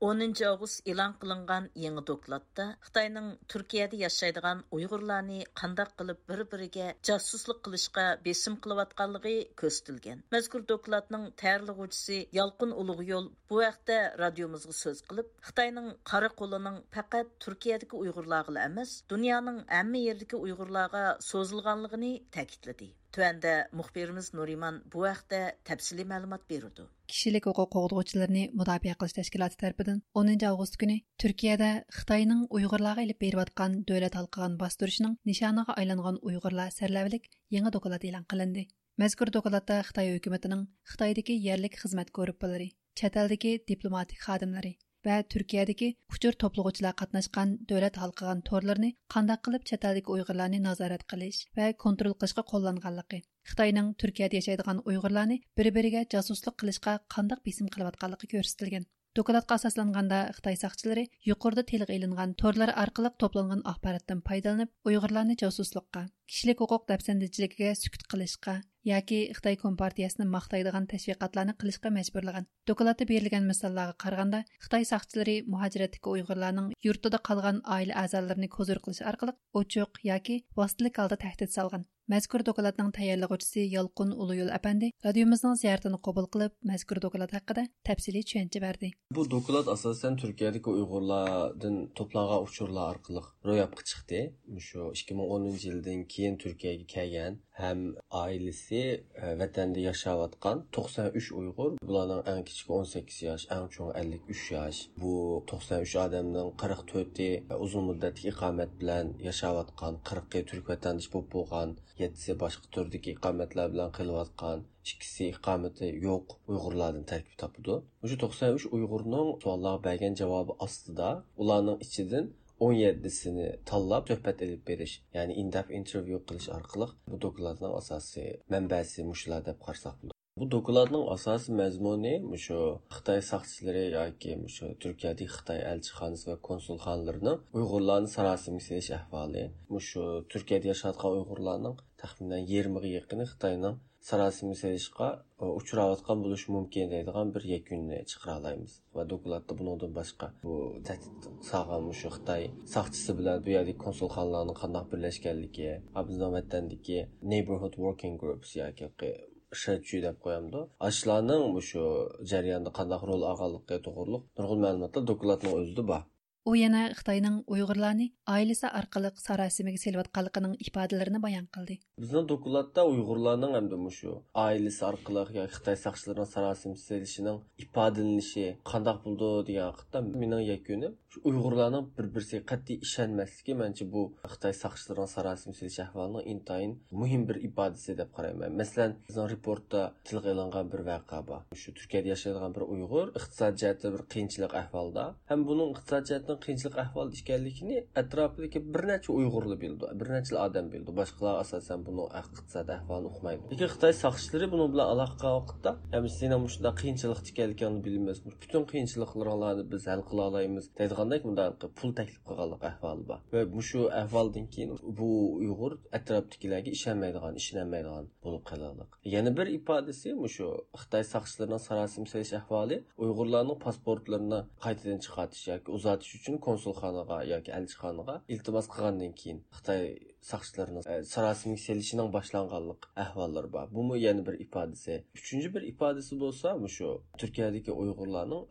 ئونىنچى ئاۋغۇست ئېلان قىلىنغان يېڭى دوكلاتتا خىتاينىڭ تۈركىيەدە ياشايدىغان ئۇيغۇرلارنى قانداق قىلىپ بىر-بىرىگە جاسۇسلۇق قىلىشقا بېسىم قىلىۋاتقانلىقى كۆرسىتىلگەن. مەزكۇر دوكلاتنىڭ تەييارلىغۇچىسى يالقۇن ئۇلۇغيول بۇ ھەقتە رادىيومىزغا سۆز قىلىپ، خىتاينىڭ قارا قولىنىڭ پەقەت تۈركىيەدىكى ئۇيغۇرلارغىلا ئەمەس، دۇنيانىڭ ھەممە يېرىدىكى ئۇيغۇرلارغا سوزۇلغانلىقىنى تەكىتلىدى. تۆۋەندە مۇخبىرىمىز نۇرىمان بۇ ھەقتە تەپسىلىي مەلۇمات بېرىدۇ. كىشىلىك ھوقۇق قوغدىغۇچىلىرىنى مۇداپىئە قىلىش تەشكىلاتى تەرىپىدىن ئونىنچى ئاۋغۇست كۈنى تۈركىيەدە خىتاينىڭ ئۇيغۇرلارغا ئېلىپ بېرىۋاتقان دۆلەت ھالقىغان باستۇرۇشىنىڭ نىشانىغا ئايلانغان ئۇيغۇرلار سەرلەۋھىلىك يېڭى دوكلات ئېلان قىلىندى. مەزكۇر دوكلاتتا خىتاي ھۆكۈمىتىنىڭ خىتايدىكى يەرلىك خىزمەت گۇرۇپپىلىرى، چەت ئەلدىكى دىپلوماتىك خادىملىرى ۋە تۈركىيەدىكى ئۇچۇر توپلىغۇچىلار قاتناشقان دۆلەت ھالقىغان تورلىرىنى قانداق قىلىپ چەت ئەلدىكى ئۇيغۇرلارنى نازارەت قىلىش ۋە كونترول قىلىشقا قوللانغانلىقى، خىتاينىڭ تۈركىيەدە ياشايدىغان ئۇيغۇرلارنى بىر-بىرىگە جاسۇسلۇق قىلىشقا قانداق بېسىم قىلىۋاتقانلىقى كۆرسىتىلگەن. دوكلاتقا ئاساسلانغاندا، خىتاي ساقچىلىرى يۇقىرىدا تىلغا ئېلىنغان تورلار ئارقىلىق توپلانغان ئاخباراتتىن پايدىلىنىپ، ئۇيغۇرلارنى جاسۇسلۇققا، كىشىلىك ھوقۇق دەپسەندىچىلىكىگە سۈكۈت قىلىشقا ياكى خىتاي كومپارتىيەسىنى ماختايدىغان تەشۋىقاتلارنى قىلىشقا مەجبۇرلىغان. دوكلاتتا بېرىلگەن مىساللارغا قارىغاندا، خىتاي ساقچىلىرى مۇھاجىرەتتىكى ئۇيغۇرلارنىڭ يۇرتىدا قالغان ئائىلە ئەزالىرىنى كوزۇر قىلىش ئارقىلىق ئوچۇق ياكى ۋاسىتىلىك ھالدا تەھدىت سالغان. مەزكۇر دوكلاتنىڭ تەييارلىغۇچىسى يالقۇن ئۇلۇيول ئەپەندى رادىيومىزنىڭ زىيارىتىنى قوبۇل قىلىپ، مەزكۇر دوكلات ھەققىدە تەپسىلىي چۈشەنچە بەردى. بۇ دوكلات ئاساسەن تۈركىيەدىكى ئۇيغۇرلاردىن توپلانغان ئۇچۇرلار ئارقىلىق روياپقا چىقتى. مۇشۇ ئىككى مىڭ ئونىنچى يىلدىن كېيىن تۈركىيەگە كەلگەن ھەم ئائىلىسى، ئە، ۋەتەندە ياشاۋاتقان توقسان ئۈچ ئۇيغۇر، بۇلارنىڭ ئەڭ كىچىكى ئون سەككىز ياش، ئەڭ چوڭى ئەللىك ئۈچ ياش. بۇ توقسان ئۈچ ئادەمنىڭ قىرىق تۆتى ئۇزۇن مۇددەتلىك ئىقامەت بىلەن ياشاۋاتقان، قىرىقى تۈرك ۋەتەندىشى بولۇپ بولغان، يەتتىسى باشقا تۈردىكى ئىقامەتلەر بىلەن قېلىۋاتقان، ئىككىسى ئىقامىتى يوق ئۇيغۇرلاردىن تەركىب تاپىدۇ. مۇشۇ توقسان ئۈچ ئۇيغۇرنىڭ سوئاللارغا بەرگەن جاۋابى ئاستىدا ئۇلارنىڭ ئىچىدىن ئون يەتتىسىنى تاللاپ سۆھبەت ئېلىپ بېرىش، يەنى in-depth interview قىلىش ئارقىلىق بۇ دوكلاتنىڭ ئاساسىي مەنبەسى مۇشۇلار دەپ قارىساق بولىدۇ. بۇ دوكلاتنىڭ ئاساسىي مەزمۇنى مۇشۇ خىتاي ساقچىلىرى ياكى مۇشۇ تۈركىيەدىكى خىتاي ئەلچىخانىسى ۋە كونسۇلخانىلىرىنىڭ ئۇيغۇرلارنى ساراسىمىگە سېلىش ئەھۋالى، مۇشۇ تۈركىيەدە ياشاۋاتقان ئۇيغۇرلارنىڭ تەخمىنەن يېرىمىغا يېقىنى خىتاينىڭ ساراسىمىگە سېلىشقا ئۇچراۋاتقان بولۇشى مۇمكىن دەيدىغان بىر يەكۈننى چىقىرالايمىز. ۋە دوكلاتتا بۇنىڭدىن باشقا بۇ تەھدىت سالغان مۇشۇ خىتاي ساقچىسى بىلەن بۇ يەردىكى كونسۇلخانىلارنىڭ قانداق بىرلەشكەنلىكى، ھە، بىزنىڭ ۋەتەندىكى neighborhood working groups ياكى شەچۈ دەپ قويامدۇ، ئاشۇلارنىڭ مۇشۇ جەرياندا قانداق رول ئالغانلىقى توغرۇلۇق نۇرغۇن مەلۇماتلار دوكلاتنىڭ ئۆزىدە بار. ئۇ يەنە خىتاينىڭ ئۇيغۇرلارنى ئائىلىسى ئارقىلىق ساراسىمىگە سېلىۋاتقانلىقىنىڭ ئىپادىلىرىنى بايان قىلدى. بىزنىڭ دوكلاتتا ئۇيغۇرلارنىڭ ھەمدە مۇشۇ ئائىلىسى ئارقىلىق ياكى خىتاي ساقچىلىرىنىڭ ساراسىمىگە سېلىشىنىڭ ئىپادىلىنىشى قانداق بولىدۇ دېگەن ھەقتە مېنىڭ يەكۈنۈم، شۇ ئۇيغۇرلارنىڭ بىر-بىرسىگە قەتئىي ئىشەنمەسلىكى، مەنچە، بۇ خىتاي ساقچىلىرىنىڭ ساراسىمىگە سېلىش ئەھۋالىنىڭ ئىنتايىن مۇھىم بىر ئىپادىسى دەپ قارايمەن. مەسىلەن، بىزنىڭ رېپورتتا تىلغا ئېلىنغان بىر ۋەقە بار. شۇ تۈركىيەدە ياشايدىغان بىر ئۇيغۇر ئىقتىساد جەھەتتە بىر قىيىنچىلىق ئەھۋالدا ھەم بۇنىڭ ئىقتىساد جەھەتتىن قىيىنچىلىق ئەھۋالدا ئىكەنلىكىنى ئەتراپىدىكى بىر نەچچە ئۇيغۇرلا بىلىدۇ، بىر نەچچىلا ئادەم بىلىدۇ. باشقىلار ئاساسەن بۇنىڭ ئىقتىساد ئەھۋالىنى ئۇقمايدۇ. لېكىن خىتاي ساقچىلىرى بۇنىڭ بىلەن ئالاقە قىلغان ۋاقىتتا، ھەم سېنىڭ مۇشۇنداق قىيىنچىلىقتا ئىكەنلىكىڭنى بىلىمىز، پۈتۈن قىيىنچىلىقلىرىڭلارنى بىز ھەل قىلالايمىز دەيدىغاندەك مۇنداق پۇل تەكلىپ قىلغانلىق ئەھۋالى بار. ۋە مۇشۇ ئەھۋالدىن كېيىن بۇ ئۇيغۇر ئەتراپتىكىلەرگە ئىشەنمەيدىغان، ئىشىنەلمەيدىغان بولۇپ قالغانلىق. يەنە بىر ئىپادىسى مۇشۇ خىتاي ساقچىلىرىنىڭ ساراسىمە سېلىش ئەھۋالى ئۇيغۇرلارنىڭ پاسپورتلىرىنى قايتىدىن چىقارتىش ياكى ئۇزارتىش ئۈچۈن كونسۇلخانىغا ياكى ئەلچىخانىغا ئىلتىماس قىلغاندىن كېيىن خىتاي ساقچىلىرىنىڭ، ئە، ساراسىمىگە سېلىشىنىڭ باشلانغانلىق ئەھۋاللىرى بار. بۇمۇ يەنە بىر ئىپادىسى. ئۈچىنچى بىر ئىپادىسى بولسا مۇشۇ تۈركىيەدىكى ئۇيغۇرلارنىڭ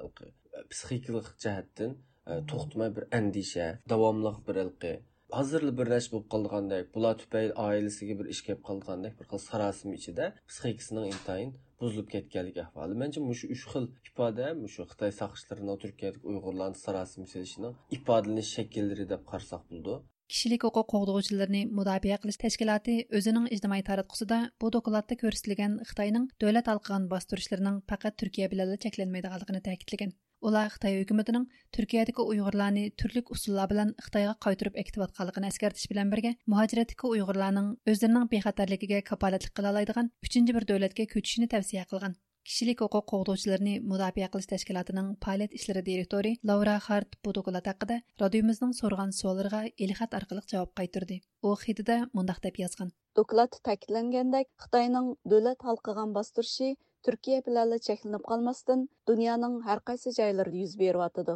پسىخىكىلىق جەھەتتىن، ئە، توختىماي بىر ئەندىشە، داۋاملىق بىر ھېلىقى ھازىرلا بىر نەرسە بولۇپ قالىدىغاندەك، بۇلار تۈپەيلى ئائىلىسىگە بىر ئىش كېلىپ قالىدىغاندەك بىر خىل ساراسىمە ئىچىدە پسىخىكىسىنىڭ ئىنتايىن بۇزۇلۇپ كەتكەنلىك ئەھۋالى. مەنچە، مۇشۇ ئۈچ خىل ئىپادە مۇشۇ خىتاي ساقچىلىرىنىڭ تۈركىيەدىكى ئۇيغۇرلارنى ساراسىمە سېلىشىنىڭ ئىپادىلىنىش شەكىللىرى دەپ قارىساق بولىدۇ. كىشىلىك ھوقۇق قوغدىغۇچىلىرىنى مۇداپىئە قىلىش تەشكىلاتى ئۆزىنىڭ ئىجتىمائىي تاراتقۇسىدا بۇ دوكلاتتا كۆرسىتىلگەن خىتاينىڭ دۆلەت ھالقىغان باستۇرۇشلىرىنىڭ پەقەت تۈركىيە بىلەنلا چەكلەنمەيدىغانلىقىنى تەكىتلىگەن. ئۇلار خىتاي ھۆكۈمىتىنىڭ تۈركىيەدىكى ئۇيغۇرلارنى تۈرلۈك ئۇسۇللار بىلەن خىتايغا قايتۇرۇپ ئەكېتىۋاتقانلىقىنى ئەسكەرتىش بىلەن بىرگە، مۇھاجىرەتتىكى ئۇيغۇرلارنىڭ ئۆزلىرىنىڭ بىخەتەرلىكىگە كاپالەتلىك قىلالايدىغان ئۈچىنچى بىر دۆلەتكە كۆچۈشىنى تەۋسىيە قىلغان. كىشىلىك ھوقۇق قوغدىغۇچىلىرىنى مۇداپىئە قىلىش تەشكىلاتىنىڭ پائالىيەت ئىشلىرى دىرېكتورى لاۋرا خارت بۇ دوكلات ھەققىدە رادىيومىزنىڭ سورىغان سوئاللىرىغا ئېلخەت ئارقىلىق جاۋاب قايتۇردى. ئۇ خېتىدە مۇنداق دەپ يازغان. دوكلاتتا تەكىتلەنگەندەك، خىتاينىڭ دۆلەت ھالقىغان باستۇرۇشى تۈركىيە بىلەنلا چەكلىنىپ قالماستىن، دۇنيانىڭ ھەر قايسى جايلىرىدا يۈز بېرىۋاتىدۇ.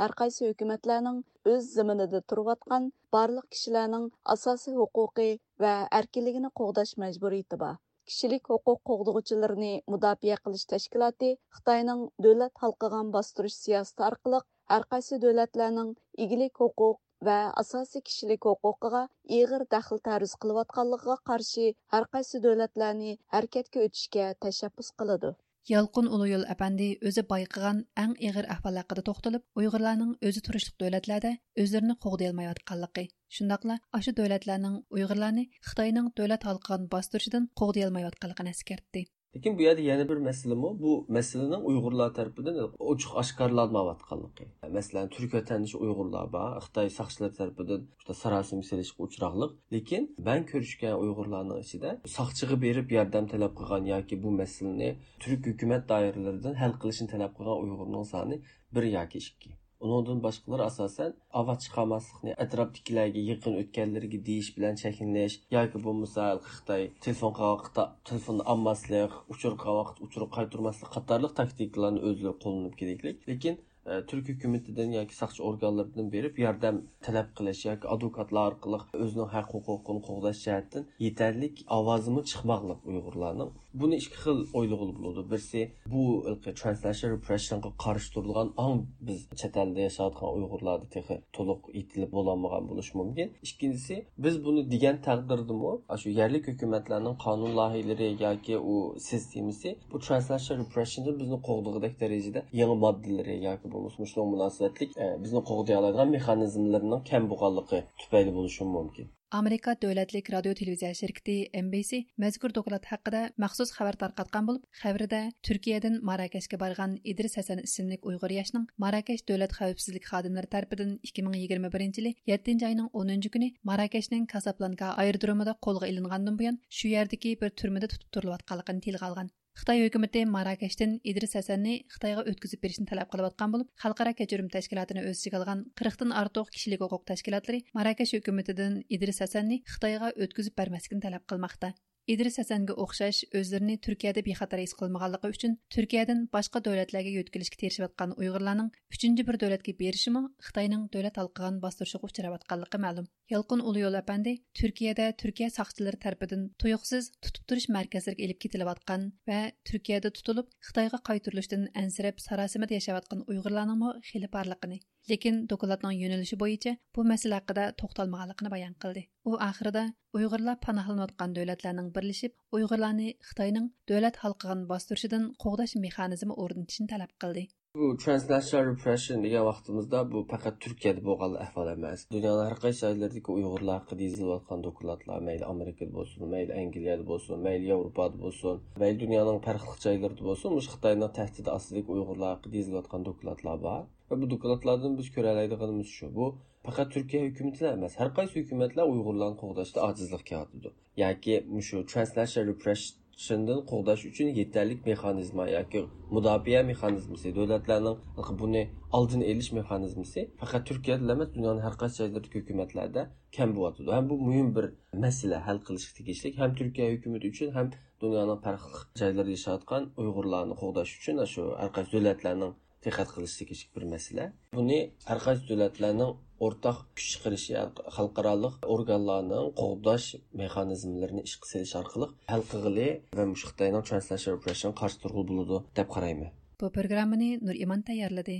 ھەر قايسى ھۆكۈمەتلەرنىڭ ئۆز زېمىنىدا تۇرۇۋاتقان بارلىق كىشىلەرنىڭ ئاساسىي ھوقۇقى ۋە ئەركىنلىكىنى قوغداش مەجبۇرىيىتى بار. كىشىلىك ھوقۇق قوغدىغۇچىلىرىنى مۇداپىئە قىلىش تەشكىلاتى خىتاينىڭ دۆلەت ھالقىغان باستۇرۇش سىياسىتى ئارقىلىق ھەر قايسى دۆلەتلەرنىڭ ئىگىلىك ھوقۇق ۋە ئاساسىي كىشىلىك ھوقۇقىغا ئېغىر دەخلى تەرۇز قىلىۋاتقانلىقىغا قارشى ھەر قايسى دۆلەتلەرنى ھەرىكەتكە ئۆتۈشكە تەشەببۇس قىلىدۇ. يالقۇن ئۇلۇيول ئەپەندى ئۆزى بايقىغان ئەڭ ئېغىر ئەھۋال ھەققىدە توختىلىپ، ئۇيغۇرلارنىڭ ئۆزى تۇرۇشلۇق دۆلەتلەردە ئۆزلىرىنى قوغدىيالمايۋاتقانلىقى، شۇنداقلا ئاشۇ دۆلەتلەرنىڭ ئۇيغۇرلارنى خىتاينىڭ دۆلەت ھالقىغان باستۇرۇشىدىن قوغدىيالمايۋاتقانلىقىنى ئەسكەرتتى. لېكىن بۇ يەردە يەنە بىر مەسىلىمۇ، بۇ مەسىلىنىڭ ئۇيغۇرلار تەرىپىدىن ئوچۇق ئاشكارىلانمايۋاتقانلىقى. مەسىلەن، تۈرك ۋەتەندىشى ئۇيغۇرلار بار، خىتاي ساقچىلىرى تەرىپىدىن شۇنداق ساراسىمە سېلىشقا ئۇچراقلىق. لېكىن مەن كۆرۈشكەن ئۇيغۇرلارنىڭ ئىچىدە ساقچىغا بېرىپ ياردەم تەلەپ قىلغان ياكى بۇ مەسىلىنى تۈرك ھۆكۈمەت دائىرىلىرىدىن ھەل قىلىشنى تەلەپ قىلغان ئۇيغۇرنىڭ سانى بىر ياكى ئىككى. ئۇنىڭدىن باشقىلار ئاساسەن ئاۋاز چىقارماسلىقنى، ئەتراپتىكىلەرگە يېقىن ئۆتكەنلىرىگە دېيىش بىلەن چەكلىنىش ياكى بولمىسا خىتاي تېلېفون قىلغان ۋاقىتتا تېلېفوننى ئالماسلىق، ئۇچۇر قىلغان ۋاقىتتا ئۇچۇر قايتۇرماسلىق قاتارلىق تاكتىكىلارنى ئۆزلىرى قوللىنىپ كېلىكلىك. لېكىن، ئە، تۈرك ھۆكۈمىتىدىن ياكى ساقچى ئورگانلىرىدىن بېرىپ ياردەم تەلەپ قىلىش ياكى ئادۋوكاتلار ئارقىلىق ئۆزىنىڭ ھەق ھوقۇقىنى قوغداش جەھەتتىن يېتەرلىك ئاۋازىمۇ چىقماقلىق ئۇيغۇرلارنىڭ. بۇنى ئىككى خىل ئويلىغىلى بولىدۇ. بىرسى، بۇ ھېلىقى ترانسناشنال رېپرېشنغا قارشى تۇرىدىغان ئاڭ بىز چەت ئەلدە ياشاۋاتقان ئۇيغۇرلاردا تېخى تولۇق يېتىلىپ بولالمىغان بولۇشى مۇمكىن. ئىككىنچىسى، بىز بۇنى دېگەن تەقدىردىمۇ، ئاشۇ يەرلىك ھۆكۈمەتلەرنىڭ قانۇن لايىھىلىرى ياكى ئۇ سىستېمىسى بۇ ترانسناشنال رېپرېشندىن بىزنى قوغدىغۇدەك دەرىجىدە يېڭى ماددىلىرى ياكى بولمىسا مۇشۇنىڭغا مۇناسىۋەتلىك، ئە، بىزنى قوغدىيالايدىغان مېخانىزملىرىنىڭ كەم بولغانلىقى تۈپەيلى بولۇشىمۇ مۇمكىن. ئامېرىكا دۆلەتلىك رادىيو تېلېۋىزىيە شىركىتى ئېن بى سى مەزكۇر دوكلات ھەققىدە مەخسۇس خەۋەر تارقاتقان بولۇپ، خەۋىرىدە تۈركىيەدىن ماراكەشكە بارغان ئىدرىس ھەسەن ئىسىملىك ئۇيغۇر ياشنىڭ ماراكەش دۆلەت خەۋپسىزلىك خادىملىرى تەرىپىدىن ئىككى مىڭ يىگىرمە بىرىنچى يىلى يەتتىنچى ئاينىڭ ئونىنچى كۈنى ماراكەشنىڭ كاسابلانكا ئايرودرومىدا قولغا ئېلىنغاندىن بۇيان، شۇ يەردىكى بىر تۈرمىدە تۇتۇپ تۇرۇلۇۋاتقانلىقىنى تىلغا ئالغان. خىتاي ھۆكۈمىتى ماراكەشتىن ئىدرىس ھەسەننى خىتايغا ئۆتكۈزۈپ بېرىشنى تەلەپ قىلىۋاتقان بولۇپ، خەلقئارا كەچۈرۈم تەشكىلاتىنى ئۆز ئىچىگە ئالغان قىرىقتىن ئارتۇق كىشىلىك ھوقۇق تەشكىلاتلىرى ماراكەش ھۆكۈمىتىدىن ئىدرىس ھەسەننى خىتايغا ئۆتكۈزۈپ بەرمەسلىكنى تەلەپ قىلماقتا. ئىدرىس ھەسەنگە ئوخشاش ئۆزلىرىنى تۈركىيەدە بىخەتەر ھېس قىلمىغانلىقى ئۈچۈن تۈركىيەدىن باشقا دۆلەتلەرگە يۆتكىلىشكە تىرىشىۋاتقان ئۇيغۇرلارنىڭ ئۈچىنچى بىر دۆلەتكە بېرىشىمۇ خىتاينىڭ دۆلەت ھالقىغان باستۇرۇشىغا ئۇچراۋاتقانلىقى مەلۇم. يالقۇن ئۇلۇيول ئەپەندى تۈركىيەدە تۈركىيە ساقچىلىرى تەرىپىدىن تۇيۇقسىز تۇتۇپ تۇرۇش مەركەزلىرىگە ئېلىپ كېتىلىۋاتقان ۋە تۈركىيەدە تۇتۇلۇپ، خىتايغا قايتۇرۇلۇشتىن ئەنسىرەپ، ساراسىمىدە ياشاۋاتقان ئۇيغۇرلارنىڭمۇ خېلى بارلىقىنى، لېكىن دوكلاتنىڭ يۆنىلىشى بويىچە بۇ مەسىلە ھەققىدە توختالمىغانلىقىنى بايان قىلدى. ئۇ ئاخىرىدا ئۇيغۇرلار پاناھلىنىۋاتقان دۆلەتلەرنىڭ بىرلىشىپ ئۇيغۇرلارنى خىتاينىڭ دۆلەت ھالقىغان باستۇرۇشىدىن قوغداش مېخانىزمى ئورنىتىشنى تەلەپ قىلدى. بۇ transnational repression دېگەن ۋاقتىمىزدا بۇ پەقەت تۈركىيەدە بولغان ئەھۋال ئەمەس. دۇنيانىڭ ھەر قايسى جايلىرىدىكى ئۇيغۇرلار ھەققىدە يېزىلىۋاتقان دوكلاتلار، مەيلى ئامېرىكىدا بولسۇن، مەيلى ئەنگلىيەدە بولسۇن، مەيلى ياۋروپادا بولسۇن، مەيلى دۇنيانىڭ پەرقلىق جايلىرىدا بولسۇن، مۇشۇ خىتاينىڭ تەھدىتى ئاستىدىكى ئۇيغۇرلار ھەققىدە يېزىلىۋاتقان دوكلاتلار بار. ۋە بۇ دوكلاتلاردىن بىز كۆرەلەيدىغىنىمىز شۇ، بۇ پەقەت تۈركىيە ھۆكۈمىتىلا ئەمەس، ھەر قايسى ھۆكۈمەتلەر ئۇيغۇرلارنى قوغداشتا ئاجىزلىق كېلىۋاتىدۇ. ياكى مۇشۇ transnational repression دىن قوغداش ئۈچۈن يېتەرلىك مېخانىزما ياكى مۇداپىئە مېخانىزمىسى، دۆلەتلەرنىڭ بۇنى ئالدىنى ئېلىش مېخانىزمىسى پەقەت تۈركىيەدىلا ئەمەس، دۇنيانىڭ ھەر قايسى جايلىرىدىكى ھۆكۈمەتلەردە كەم بولۇۋاتىدۇ. ھەم بۇ مۇھىم بىر مەسىلە، ھەل قىلىشقا تېگىشلىك ھەم تۈركىيە ھۆكۈمىتى ئۈچۈن، ھەم دۇنيانىڭ پەرقلىق جايلىرىدا ياشاۋاتقان ئۇيغۇرلارنى قوغداش ئۈچۈن شۇ ھەر قايسى دۆلەتلەرنىڭ دىققەت قىلىشى تېگىشلىك بىر مەسىلە. بۇنى ھەر قايسى دۆلەتلەرنىڭ ئورتاق كۈچ چىقىرىشى، خەلقئارالىق ئورگانلارنىڭ قوغداش مېخانىزملىرىنى ئىشقا سېلىش ئارقىلىق ھەل قىلغىلى ۋە مۇشۇ خىتاينىڭ transnational repression قارشى تۇرغىلى بولىدۇ دەپ قارايمەن. بۇ پروگراممىنى نۇر ئىمان تەييارلىدى.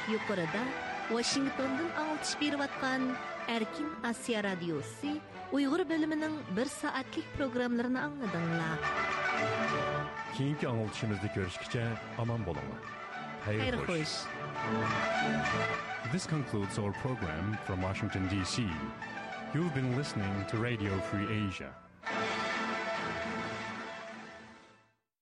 يۇقىرىدا ۋاشىنگتوندىن ئاڭلىتىش بېرىۋاتقان ئەركىن ئاسىيا رادىيوسى ئۇيغۇر بۆلۈمىنىڭ بىر سائەتلىك پروگراممىلىرىنى ئاڭلىدىڭلار. كېيىنكى ئاڭلىتىشىمىزدا كۆرۈشكىچە ئامان بولۇڭلار. خەير خوش. This concludes our program from Washington, D C. You've been listening to Radio Free Asia.